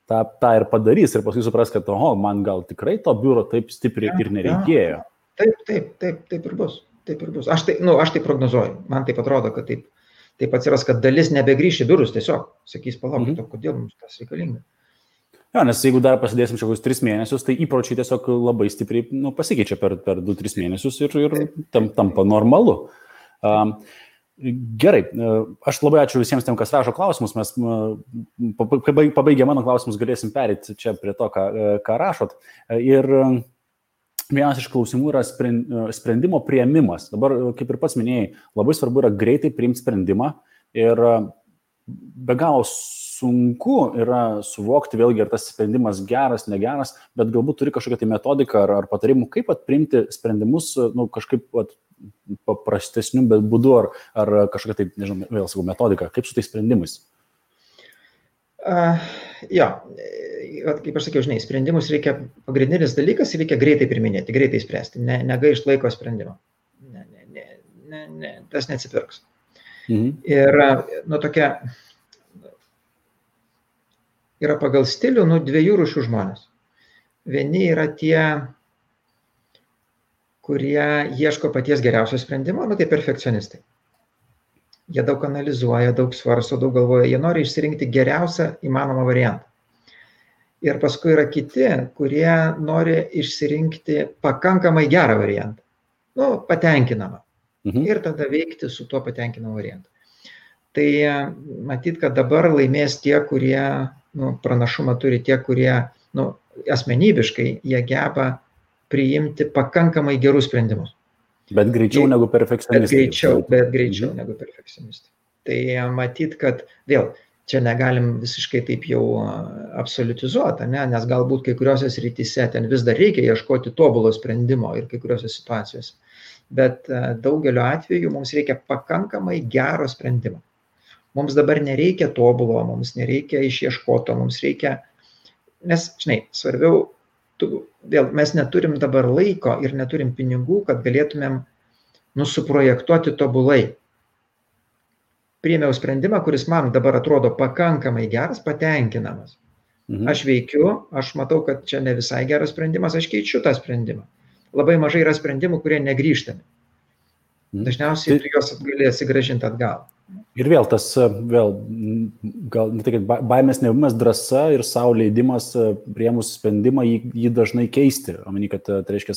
tą ir padarys ir paskui supras, kad man gal tikrai to biuro taip stipriai ir nereikėjo. Taip ir bus. Aš tai prognozuoju, man taip atrodo, kad taip atsiras, kad dalis nebegrįš į biurus tiesiog, sakys, palaukit, kodėl mums tas reikalinga. Jo, nes jeigu dar pasidėsim šiaus 3 mėnesius, tai įpročiai tiesiog labai stipriai pasikeičia per 2-3 mėnesius ir tampa normalu. Gerai, aš labai ačiū visiems tiem, kas rašo klausimus, mes pabaigę mano klausimus galėsim perėti čia prie to, ką rašot. Ir vienas iš klausimų yra sprendimo priėmimas. Dabar, kaip ir pats minėjai, labai svarbu yra greitai priimti sprendimą ir be galo sunku yra suvokti vėlgi, ar tas sprendimas geras, negeras, bet galbūt turi kažkokią tai metodiką ar patarimų, kaip priimti sprendimus kažkaip paprastesniu būdu ar kažkokią tai, nežinau, vėl sakau, metodiką, kaip su tais sprendimais. Jo, kaip aš sakiau, žinai, sprendimus reikia, pagrindinis dalykas, reikia greitai priminėti, greitai spręsti, negaišt laiko sprendimo. Tas neatsipirks. Ir, tokia, yra pagal stilių, dviejų rūšių žmonės. Vieni yra tie, kurie ieško paties geriausio sprendimo, tai perfekcionistai. Jie daug analizuoja, daug svarsto, daug galvoja, jie nori išsirinkti geriausią įmanomą variantą. Ir paskui yra kiti, kurie nori išsirinkti pakankamai gerą variantą. Patenkinamą. Ir tada veikti su tuo patenkinamu variantu. Tai matyt, kad dabar laimės tie, kurie pranašumą turi, tie, kurie asmenybiškai jie geba priimti pakankamai gerus sprendimus. Bet greičiau negu perfekcionistai. Bet greičiau negu perfekcionistai. Tai matyt, kad vėl čia negalim visiškai taip jau absoliutizuoti, nes galbūt kai kuriuose srityse ten vis dar reikia ieškoti tobulo sprendimo ir kai kuriuose situacijose. Bet daugeliu atveju mums reikia pakankamai gero sprendimo. Mums dabar nereikia tobulo, mums nereikia išieškoto, mums reikia, nes, žinai, svarbiau, vėl mes neturim dabar laiko ir neturim pinigų, kad galėtumėm suprojektuoti tobulai. Priėmiau sprendimą, kuris man dabar atrodo pakankamai geras, patenkinamas. Aš veikiu, aš matau, kad čia ne visai geras sprendimas, aš keičiu tą sprendimą. Labai mažai yra sprendimų, kurie negrįžtami. Dažniausiai tu juos gali atsigrąžinti atgal. Ir vėl tas, gal ne tai, kad baimės nebuvimas, drąsa ir savo leidimas priėmus sprendimą jį dažnai keisti. Omeny, kad tai reiškia,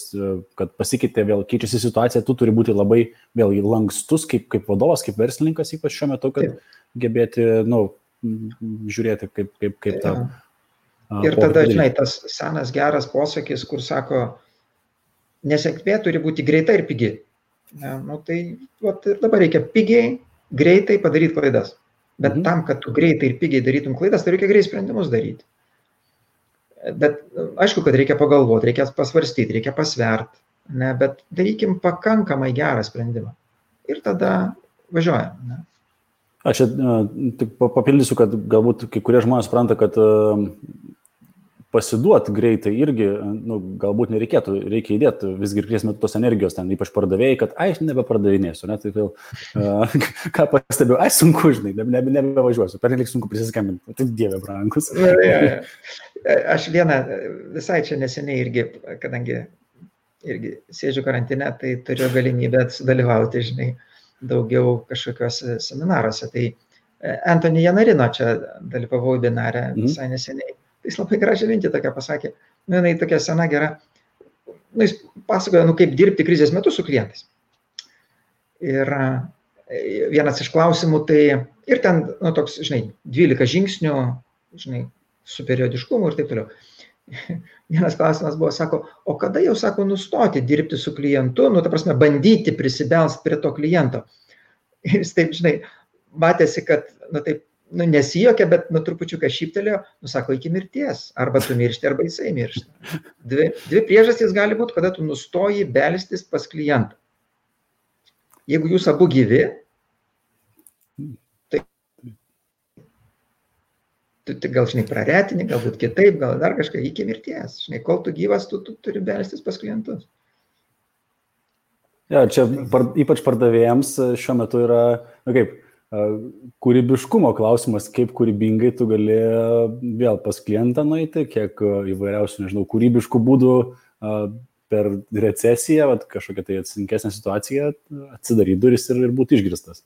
kad pasikeitė, vėl keičiasi situacija, tu turi būti labai vėl lankstus kaip vadovas, kaip verslininkas, ypač šiuo metu, kad gebėti, žiūrėti, kaip tą. Ir tada, žinai, tas senas geras posakis, kur sako, nesėkmė turi būti greita ir pigi. Tai ir dabar reikia pigiai, greitai padaryti klaidas. Bet tam, kad tu greitai ir pigiai darytum klaidas, tai reikia greitai sprendimus daryti. Bet aišku, kad reikia pagalvoti, reikia pasvarstyti, reikia pasverti, bet darykim pakankamai gerą sprendimą. Ir tada važiuojam. Aš tik papildysiu, kad galbūt kai kurie žmonės supranta, kad pasiduoti greitai irgi, galbūt nereikėtų, reikia įdėti visgi ir krėsime tos energijos ten, ypač pardavėjai, kad aš nebepardavinėsiu, tai vėl, ką pastebėjau, sunku, žinai, nebevažiuosiu, pernelik sunku prisiskambinti, tai dieve brangus. Aš visai čia neseniai irgi, kadangi irgi sėdžiu karantine, tai turiu galimybę sudalyvauti, žinai, daugiau kažkokiuose seminaruose. Tai Anthony Janarino čia dalyvavau webinare visai neseniai. Jis labai gražią mintį tokia pasakė, jinai tokia sena gera, jis pasakoja, kaip dirbti krizės metu su klientais. Ir vienas iš klausimų, tai ir ten, toks, žinai, 12 žingsnių, žinai, su periodiškumu ir taip toliau. Vienas klausimas buvo, sako, o kada jau, sako, nustoti dirbti su klientu, ta prasme, bandyti prisibelsti prie to kliento. Ir jis taip, žinai, matėsi, kad, taip, nesijokia, bet trupučiuką šyptelėjo, sako, iki mirties, arba tu miršti, arba jisai miršta. Dvi priežastys gali būti, kada tu nustoji belstis pas klientą. Jeigu jūs abu gyvi, tai tu gal, žinai, praretini, galbūt kitaip, gal dar kažką, iki mirties. Žinai, kol tu gyvas, tu turi belstis pas klientus. Ja, čia ypač pardavėjams šiuo metu yra, kūrybiškumo klausimas, kaip kūrybingai tu gali vėl pas klientą nueiti, kiek įvairiausių, nežinau, kūrybiškų būdų per recesiją, kažkokią tai atsinkesnę situaciją, atsidaryti duris ir būti išgirstas.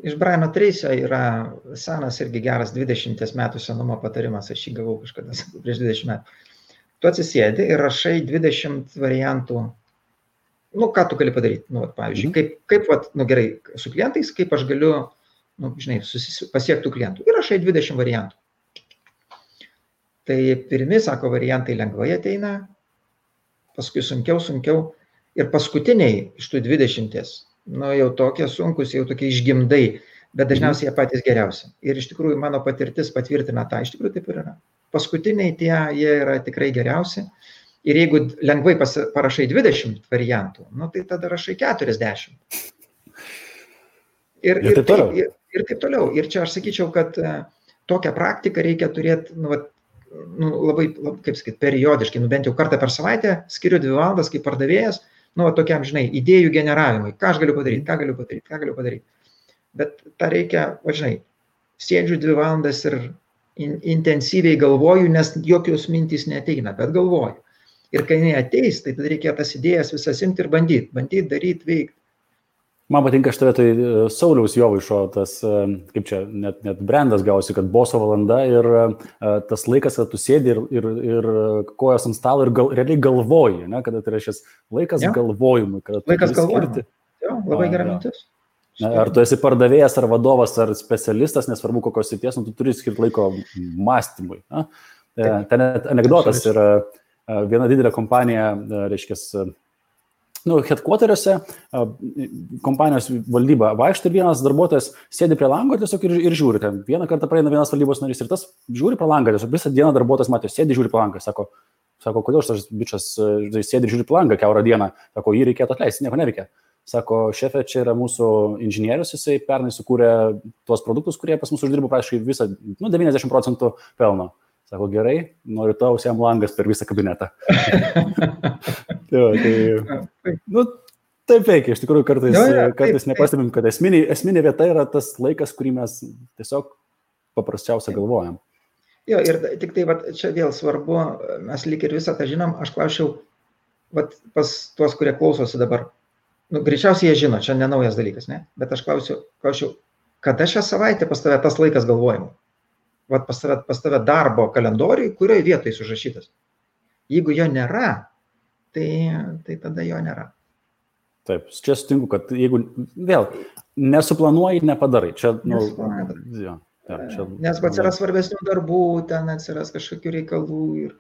Iš Briano Tracy'o yra senas irgi geras 20 metų senumo patarimas, aš jį gavau kažkada prieš 20 metų. Tu atsisėdi ir rašai 20 variantų. Ką tu gali padaryti? Pavyzdžiui, kaip gerai, su klientais, kaip aš galiu, žinai, pasiektų klientų. Ir rašai 20 variantų. Tai pirmi, sako, variantai lengvai ateina, paskui sunkiau. Ir paskutiniai iš tų 20, jau tokie sunkus, jau tokie išgimdai, bet dažniausiai jie patys geriausi. Ir iš tikrųjų mano patirtis patvirtina tą, iš tikrųjų taip ir yra. Paskutiniai jie yra tikrai geriausi. Ir jeigu lengvai parašai 20 variantų, tai tada rašai 40. Ir taip toliau. Ir čia aš sakyčiau, kad tokią praktiką reikia turėti, labai, kaip sakyti, periodiškai, bent jau kartą per savaitę, skiriu 2 valandas kaip pardavėjas, tokiam, žinai, idėjų generavimui, ką aš galiu padaryti. Bet tą reikia, žinai, sėdžiu 2 valandas ir intensyviai galvoju, nes jokios mintys neateina, bet galvoju. Ir kai jinai ateis, tai tada reikia tas idėjas visas imti ir bandyti, daryti, veikti. Man patinka šitą tai Sauliaus Jovaišo, tas, kaip čia, net brandas gausi, kad boso valanda ir tas laikas, kad tu sėdi ir kojas ant stalo ir realiai galvoji, ne, kada tai yra šis laikas galvojimui. Laikas galvojimui. Jo, labai gera mintis. Ar tu esi pardavėjas, ar vadovas, ar specialistas, nesvarbu kokios srities, tu turi skirti laiko mąstymui. Ten anekdotas yra viena didelė kompanija, reiškia, headquarteriuose, kompanijos valdyba vaikšto ir vienas darbuotojas sėdi prie lango tiesiog ir žiūri. Ten vieną kartą praeina vienas valdybos narys ir tas žiūri prie langą, tiesiog visą dieną darbuotojas matė, sėdi žiūri prie langą. Sako, kodėl šitas bičas sėdi žiūri prie langą kiaurą dieną? Sako, jį reikėtų atleisti, nieko neveikia. Sako, šefė, čia yra mūsų inžinierius, jisai pernai sukūrė tuos produktus, kurie pas mus uždirbo praktiškai visą, 90% pelno. Sako, gerai, noriu tau jam langas per visą kabinetą. Taip veikia, iš tikrųjų kartais nepastebim, kad esminė vieta yra tas laikas, kurį mes tiesiog paprasčiausia galvojam. Jo, ir tik tai čia vėl svarbu, mes lyg ir visą tą žinom, aš klausiau pas tuos, kurie klausosi dabar. Greičiausiai jie žino, čia nenaujas dalykas, ne? Bet aš klausiau, kada šią savaitę pas tave tas laikas galvojimo? Pas tave darbo kalendoriui, kurioje vietoje užrašytas. Jeigu jo nėra, tai tada jo nėra. Taip, čia sutinku, kad jeigu vėl nesuplanuoji, nepadarai. Čia, nes atsiras svarbesnių darbų, ten atsiras kažkokių reikalų.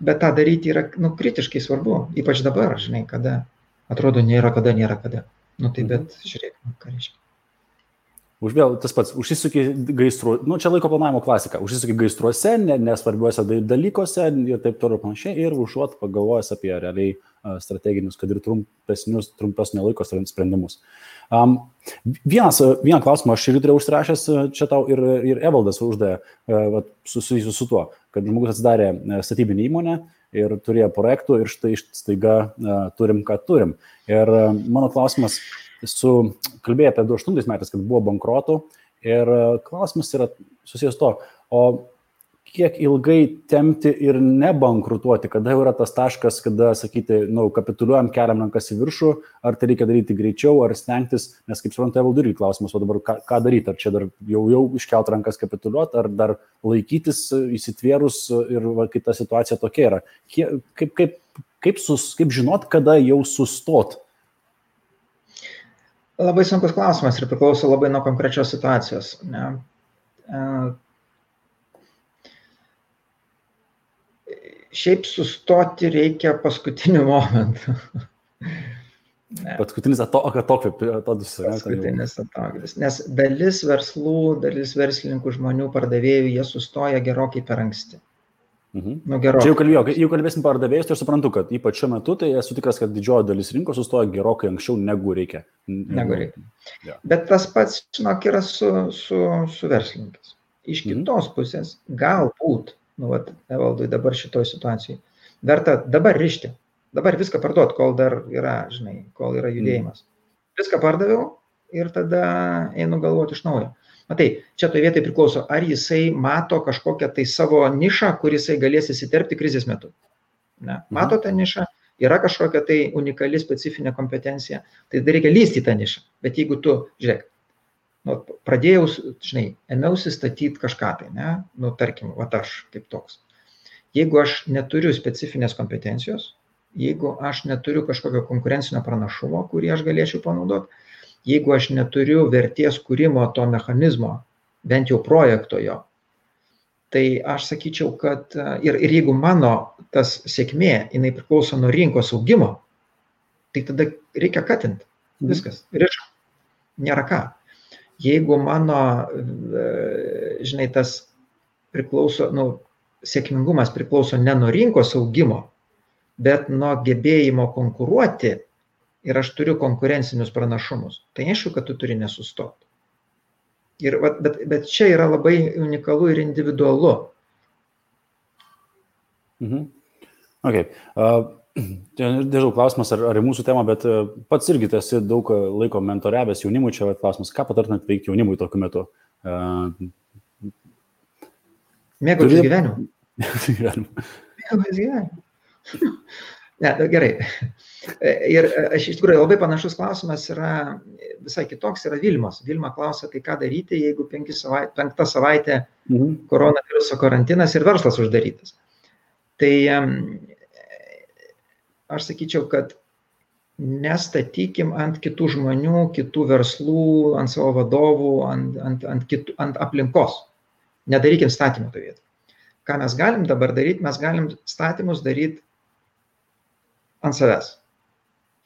Bet tą daryti yra kritiškai svarbu, ypač dabar, žinai, kada atrodo nėra kada. Bet žiūrėk, ką reiškia. Vėl tas pats, užsisuki gaisru, čia laiko planavimo klasika, užsisuki gaisruose, nesvarbiuose dalykuose ir taip toliau panašiai, ir užuot pagalvojęs apie realiai strateginius, kad ir trumpesnio laiko sprendimus. Vieną klausimą aš ir turėjau užsirašęs, čia tau ir Evaldas uždavė susijusiu su tuo, kad žmogus atsidarė statybinį įmonę ir turėjo projektų ir štai staiga turim, ką turim. Ir mano klausimas, kalbėjai apie 2008 metais, kad buvo bankrotų ir klausimas yra susijęs to, o kiek ilgai tempti ir nebankrutuoti, kada jau yra tas taškas, kada sakyti, kapituliuojam, keliam rankas į viršų, ar tai reikia daryti greičiau, ar stengtis, nes kaip suprantu, Evaldui irgi klausimas, o dabar ką daryti, ar čia dar jau iškelt rankas kapituliuoti, ar dar laikytis įsitvėrus ir kita situacija tokia yra. Kaip žinot, kada jau sustot? Labai sunkus klausimas ir priklauso labai nuo konkrečios situacijos. Ne? Šiaip sustoti reikia paskutiniu momentu. Paskutinis atodus. Paskutinis atodus. Nes dalis verslų, dalis verslininkų žmonių, pardavėjų, jie sustoja gerokai per anksti. Čia jau kalbėsim pardavėjus, tai aš suprantu, kad ypač šiuo metu, tai esu tikras, kad didžioji dalis rinkos sustoja gerokai anksčiau negu reikia. Ja. Bet tas pats, žinok, yra su verslininkais. Iš kitos pusės, galbūt, Evaldui dabar šitoj situacijai, verta dabar rišti, dabar viską parduot, kol dar yra, žinai, kol yra judėjimas. Viską pardaviau ir tada einu galvoti iš naujo. Matai, čia toje vietoje priklauso, ar jisai mato kažkokią tai savo nišą, kur jisai galės įsiterpti krizės metu. Ne? Mato tą nišą, yra kažkokia tai unikali specifinė kompetencija, tai reikia lysti tą nišą. Bet jeigu tu, žiūrėk, pradėjau, žinai, ėmiausi statyti kažką tai, ne? Tarkim, aš kaip toks. Jeigu aš neturiu specifinės kompetencijos, jeigu aš neturiu kažkokio konkurencinio pranašumo, kurį aš galėčiau panaudoti, jeigu aš neturiu vertės kūrimo to mechanizmo, bent jau projekto jo, tai aš sakyčiau, kad ir jeigu mano tas sėkmė, jinai priklauso nuo rinkos augimo, tai tada reikia katinti. Viskas. Riška. Nėra ką. Jeigu mano, žinai, tas priklauso, sėkmingumas priklauso ne nuo rinkos augimo, bet nuo gebėjimo konkuruoti, ir aš turiu konkurencinius pranašumus, tai aišku, kad tu turi nesustoti. Bet čia yra labai unikalu ir individualu. Okay. Nežinau, klausimas ar į mūsų temą, bet pats irgi esi daug laiko mentoriavęs jaunimui, čia klausimas, ką patartumėt veikti jaunimui tokiu metu? Mėgautis gyvenimu. Mėgautis gyvenimu. Ne, gerai. Ir iš tikrųjų labai panašus klausimas yra visai kitoks, yra Vilmos. Vilma klausia, tai ką daryti, jeigu 5 savaitė koronaviruso karantinas ir verslas uždarytas. Tai aš sakyčiau, kad nestatykim ant kitų žmonių, kitų verslų, ant savo vadovų, ant aplinkos. Nedarykim statymų to vietą. Ką mes galim dabar daryti? Mes galim statymus daryti ant savęs.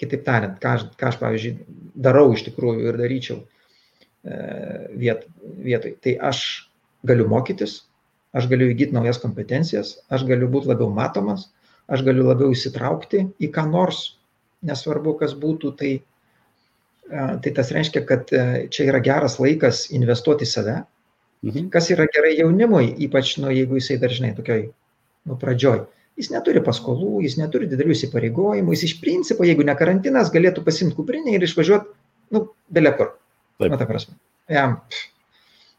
Kitaip tariant, ką aš, pavyzdžiui, darau iš tikrųjų ir daryčiau vietoj. Tai aš galiu mokytis, aš galiu įgyti naujas kompetencijas, aš galiu būti labiau matomas, aš galiu labiau įsitraukti į ką nors, nesvarbu, kas būtų. Tai tas reiškia, kad čia yra geras laikas investuoti į save. Kas yra gerai jaunimui, ypač, jeigu jisai dažnai tokioj, pradžioj. Jis neturi paskolų, jis neturi didelių įsipareigojimų, jis iš principo, jeigu ne karantinas, galėtų pasimti kuprinę ir išvažiuoti, bele kur. Ta prasme. Jam,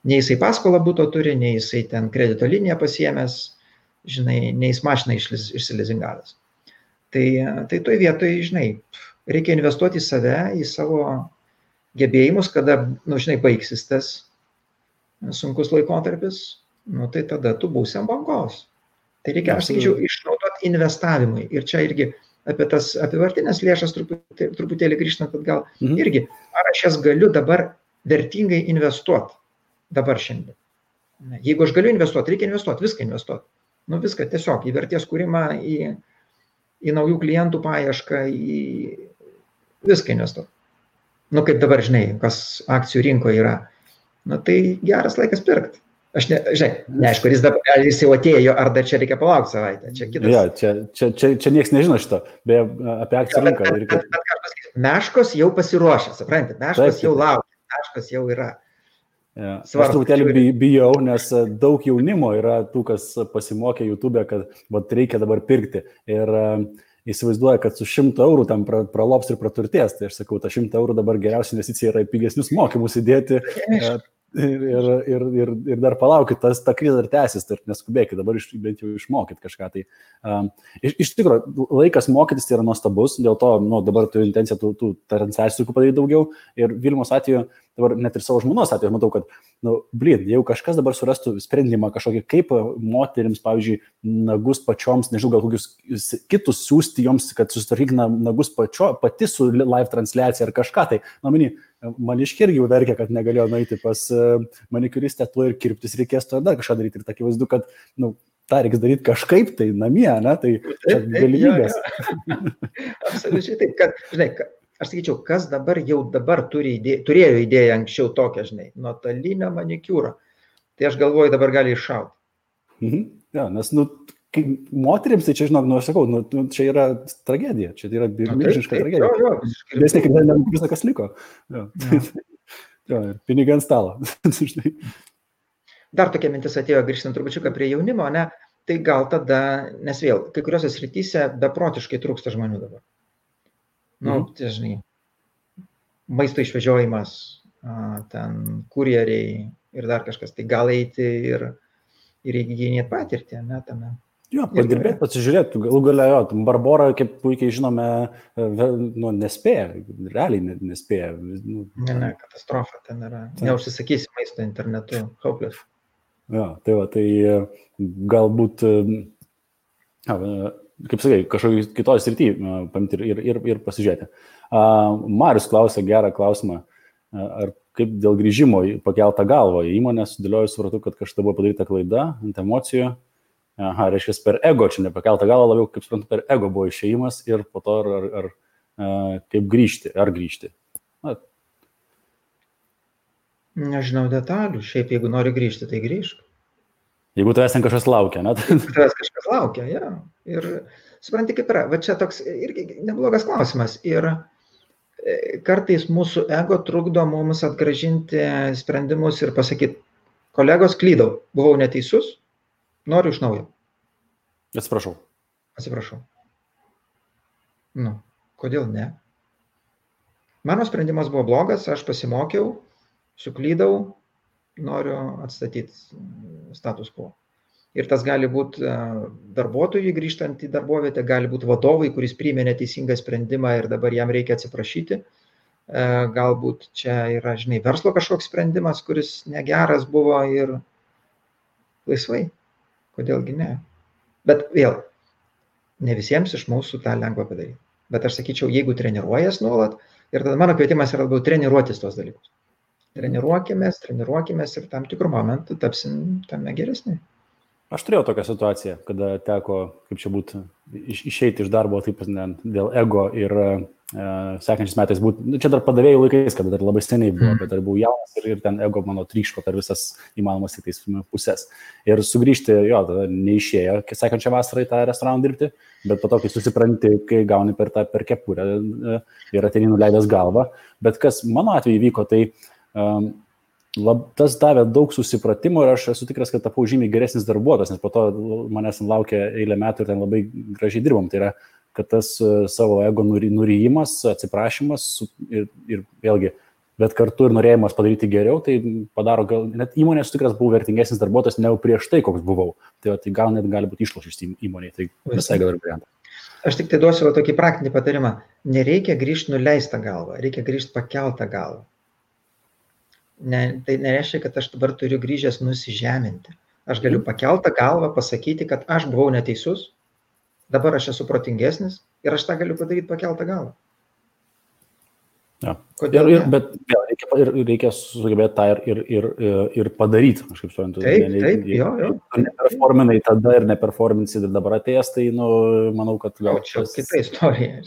nei jisai paskolą būto turi, nei jisai ten kredito liniją pasiėmęs, žinai, nei jis mašiną išsilizingavęs. Tai toj vietoj, žinai, reikia investuoti į save, į savo gebėjimus, kada, žinai, baigsis tas sunkus laikotarpis, tai tada tu būsi ant bangos. Tai reikia, aš sakyčiau, išnaudoti investavimui. Ir čia irgi apie tas apivartinės lėšas truputėlį grįžtant atgal. Irgi, ar aš jas galiu dabar vertingai investuoti dabar šiandien. Jeigu aš galiu investuoti, reikia investuoti, viską investuoti. Viską tiesiog į vertės kūrimą, į naujų klientų paiešką, į viską investuoti. Kaip dabar, žinai, kas akcijų rinkoje yra. Tai geras laikas pirkti. Aš neaišku, ar jis jau atėjo, ar dar čia reikia palaukti savaitę. Čia kitas. Ja, čia niekas nežino šito, beje, apie akcijų rinką. Bet ką aš pasakysiu, meškos jau pasiruošę, suprantate, meškos jau laukia, meškos jau yra. Ja. Aš truputėlį bijau, nes daug jaunimo yra tų, kas pasimokė YouTube, kad reikia dabar pirkti. Ir įsivaizduoja, kad su 100 eurų tam pralops ir praturtės. Tai aš sakau, ta 100 eurų dabar geriausia investicija yra į pigesnius mokymus įdėti. Ir dar palaukit, ta krizė dar tęsis, tai neskubėkit, dabar bent jau išmokyt kažką. Iš tikrųjų, laikas mokytis tai yra nuostabus, dėl to dabar turiu intenciją tų transliacijų padaryti daugiau. Ir Vilmos atveju, dabar net ir savo žmonos atveju, matau, kad, jeigu kažkas dabar surastų sprendimą kažkokį, kaip moterims, pavyzdžiui, nagus pačioms, nežinau, gal kokius kitus siūsti joms, kad susitvarkyk nagus pati su live transliacija ar kažką, tai, maniškiai irgi jau verkia, kad negalėjo nueiti pas manikiuristę, tuo ir kirptis reikės, to dar kažką daryti. Ir tą akivaizdu, kad tą reikia daryti kažkaip tai namie, tai čia galimybės. Absoliučiai taip, kad, žinai, aš sakyčiau, kas dabar turėjo idėją anksčiau tokią, žinai, nuotolinio manikiūro, tai aš galvoju, dabar gali iššauti. Ja, nes, kai moterims, tai čia, žinok, aš sakau, čia yra tragedija, čia yra milžiniška tragedija. Nes visą, kas liko. Pinigai ant stalo. Dar tokia mintis atėjo, grįžtant trupučiuką prie jaunimo, tai gal tada, nes vėl, kai kuriuose srityse beprotiškai trūksta žmonių dabar. Tai, žinai, maisto išvežiojimas, ten kurjeriai ir dar kažkas, tai gal eiti ir įgyjinėti patirtį, tame. Jo, padirbėti, pasižiūrėti, galų galia, Barbora, kaip puikiai žinome, nespėja, realiai nespėja. Ne, katastrofa ten yra. Neužsisakysi maisto internetu, hopeless. Jo, tai galbūt, kaip sakai, kažkokį kitoj srity paimti ir pasižiūrėti. Marius klausė gerą klausimą, ar kaip dėl grįžimo pakeltą galvą į įmonę, sudėliojus, supratau, kad kažkada buvo padaryta klaida ant emocijų. Reiškia, per ego, čia nepakeltą galvą, labiau, kaip suprantu, per ego buvo išėjimas ir po to ar kaip grįžti, ar grįžti. Nežinau detalių, šiaip jeigu nori grįžti, tai grįžk. Jeigu tavęs ten kažkas laukia, Tavęs kažkas laukia, ja. Ir supranti, kaip yra, va čia toks irgi neblogas klausimas. Ir kartais mūsų ego trukdo mums atgrąžinti sprendimus ir pasakyti, kolegos, klydau, buvau neteisus, noriu iš naujo. Atsiprašau. Nu, kodėl ne? Mano sprendimas buvo blogas, aš pasimokiau, suklydau, noriu atstatyti status quo. Ir tas gali būti darbuotojui grįžtant į darbovietę, gali būti vadovui, kuris priėmė neteisingą sprendimą ir dabar jam reikia atsiprašyti. Galbūt čia yra, verslo kažkoks sprendimas, kuris negeras buvo ir laisvai. Kodėlgi ne? Bet vėl, ne visiems iš mūsų tą lengva padaryti. Bet aš sakyčiau, jeigu treniruojas nuolat, ir tada mano kvietimas yra labiau treniruotis tos dalykus. Treniruokimės ir tam tikrų momentų tapsim tame geresni. Aš turėjau tokią situaciją, kada teko, kaip čia būtų, išeiti iš darbo taip dėl ego ir sekančiais metais būtų, čia dar padavėjų laikais, kada dar labai seniai buvo, bet dar buvau jaunas ir ten ego mano tryško per visas įmanomas kitais pusės. Ir sugrįžti, tada neišėjo sekančią vasarą į tą restoraną dirbti, bet po to, kai susipranti, kai gauni per kepurę ir ateini nuleidęs galvą. Bet kas mano atveju vyko, tai tas davė daug susipratimo ir aš esu tikras, kad tapau žymiai geresnis darbuotojas, nes po to manęs laukia eilę metų ir ten labai gražiai dirbom. Tai yra, kad tas savo ego nuryjimas, atsiprašymas ir vėlgi, bet kartu ir norėjimas padaryti geriau, tai padaro, gal net įmonė esu tikras, buvau vertingesnis darbuotojas negu prieš tai, koks buvau. Tai gal net gali būti išlošis įmonėje, tai visai gal ir variantą. Aš tik tai duosiu tokį praktinį patarimą. Nereikia grįžti nuleistą galvą, reikia grįžti pakeltą galvą. Tai nereiškia, kad aš dabar turiu grįžęs nusižeminti. Aš galiu pakeltą galvą pasakyti, kad aš buvau neteisus, dabar aš esu protingesnis ir aš tą galiu padaryti pakeltą galvą. Ja. Bet reikia sugebėti tą ir padaryti. Aš kaip suprantu. Taip. Neperforminai tada ir neperforminsi dabar atėjęs, tai manau, kad gal čia kita istorija.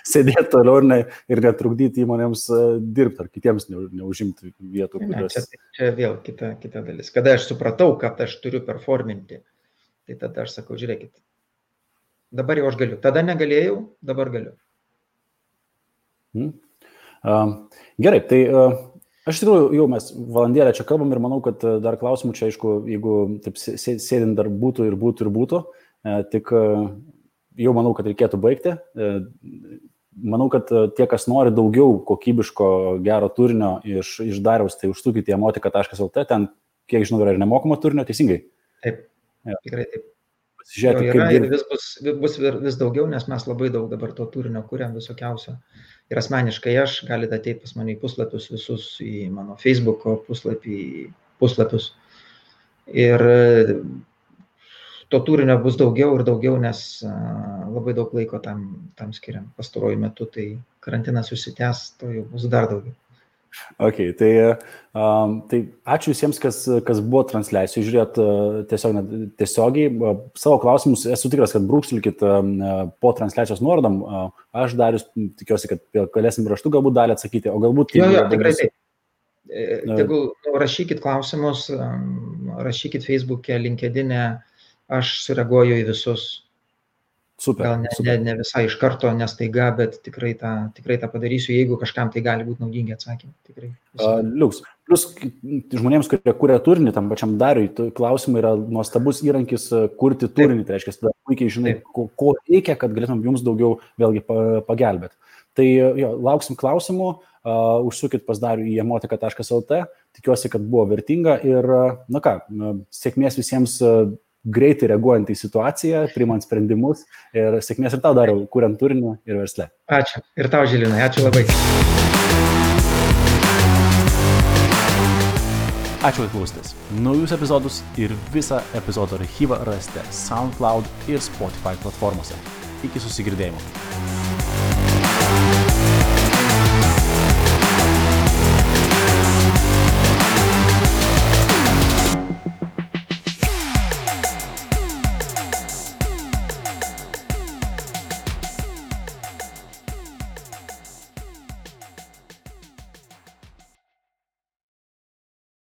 Sėdėti toliau ir netrukdyti įmonėms dirbti ar kitiems neužimti vietų. Čia vėl kita dalis. Kada aš supratau, kad aš turiu performinti, tai tada aš sakau, žiūrėkit, dabar jau aš galiu. Tada negalėjau, dabar galiu. Gerai, tai aš tikrųjų jau mes valandėlę čia kalbam ir manau, kad dar klausimų čia, aišku, jeigu taip sėdint dar būtų, tik jau manau, kad reikėtų baigti. Manau, kad tie, kas nori daugiau kokybiško gero turinio iš Dariaus, tai užsukite į emotika.lt, ten, kiek žinau, yra ir nemokamo turinio, teisingai? Taip, tikrai taip. Pasižiūrėti, bus vis daugiau, nes mes labai daug dabar to turinio kuriam visokiausio. Ir asmeniškai aš galite ateiti pas mane į puslapius visus, į mano Facebook'o puslapius. Ir to turinio bus daugiau ir daugiau, nes labai daug laiko tam skiriam. Pastaruoju metu, tai karantinas užsitęs, to jau bus dar daugiau. Ok, tai ačiū visiems, kas buvo transliacijų, žiūrėt tiesiogiai. Savo klausimus esu tikras, kad brūkštelkit po transliacijos nuorodom. Aš Darius tikiuosi, kad galėsim raštu galbūt dalį atsakyti, o galbūt... Jo, tikrai taip. Tegul rašykit klausimus, rašykit Facebook'e, LinkedIn'e, aš sureaguoju į visus. Super. Gal ne visai iš karto, nestaiga, bet tikrai tą padarysiu, jeigu kažkam tai gali būti naudingi atsakymai. Liuks. Plus žmonėms, kurie kuria turinį, tam pačiam Dariui, klausimai yra nuostabus įrankis kurti turinį. Tai reiškia, tada puikiai žinai, ko reikia, kad galėtum jums daugiau vėlgi pagelbėti. Tai lauksim klausimų, užsukit pas Darių į emotika.lt, tikiuosi, kad buvo vertinga ir, sėkmės visiems greitai reaguojant į situaciją, priimant sprendimus ir sėkmės ir tau, Dariau, kuriant turinį ir versle. Ačiū. Ir tau, Žilinai. Ačiū labai. Ačiū, kad klausėtės. Naujus epizodus ir visą epizodo archyvą rasite SoundCloud ir Spotify platformose. Iki susigirdėjimo.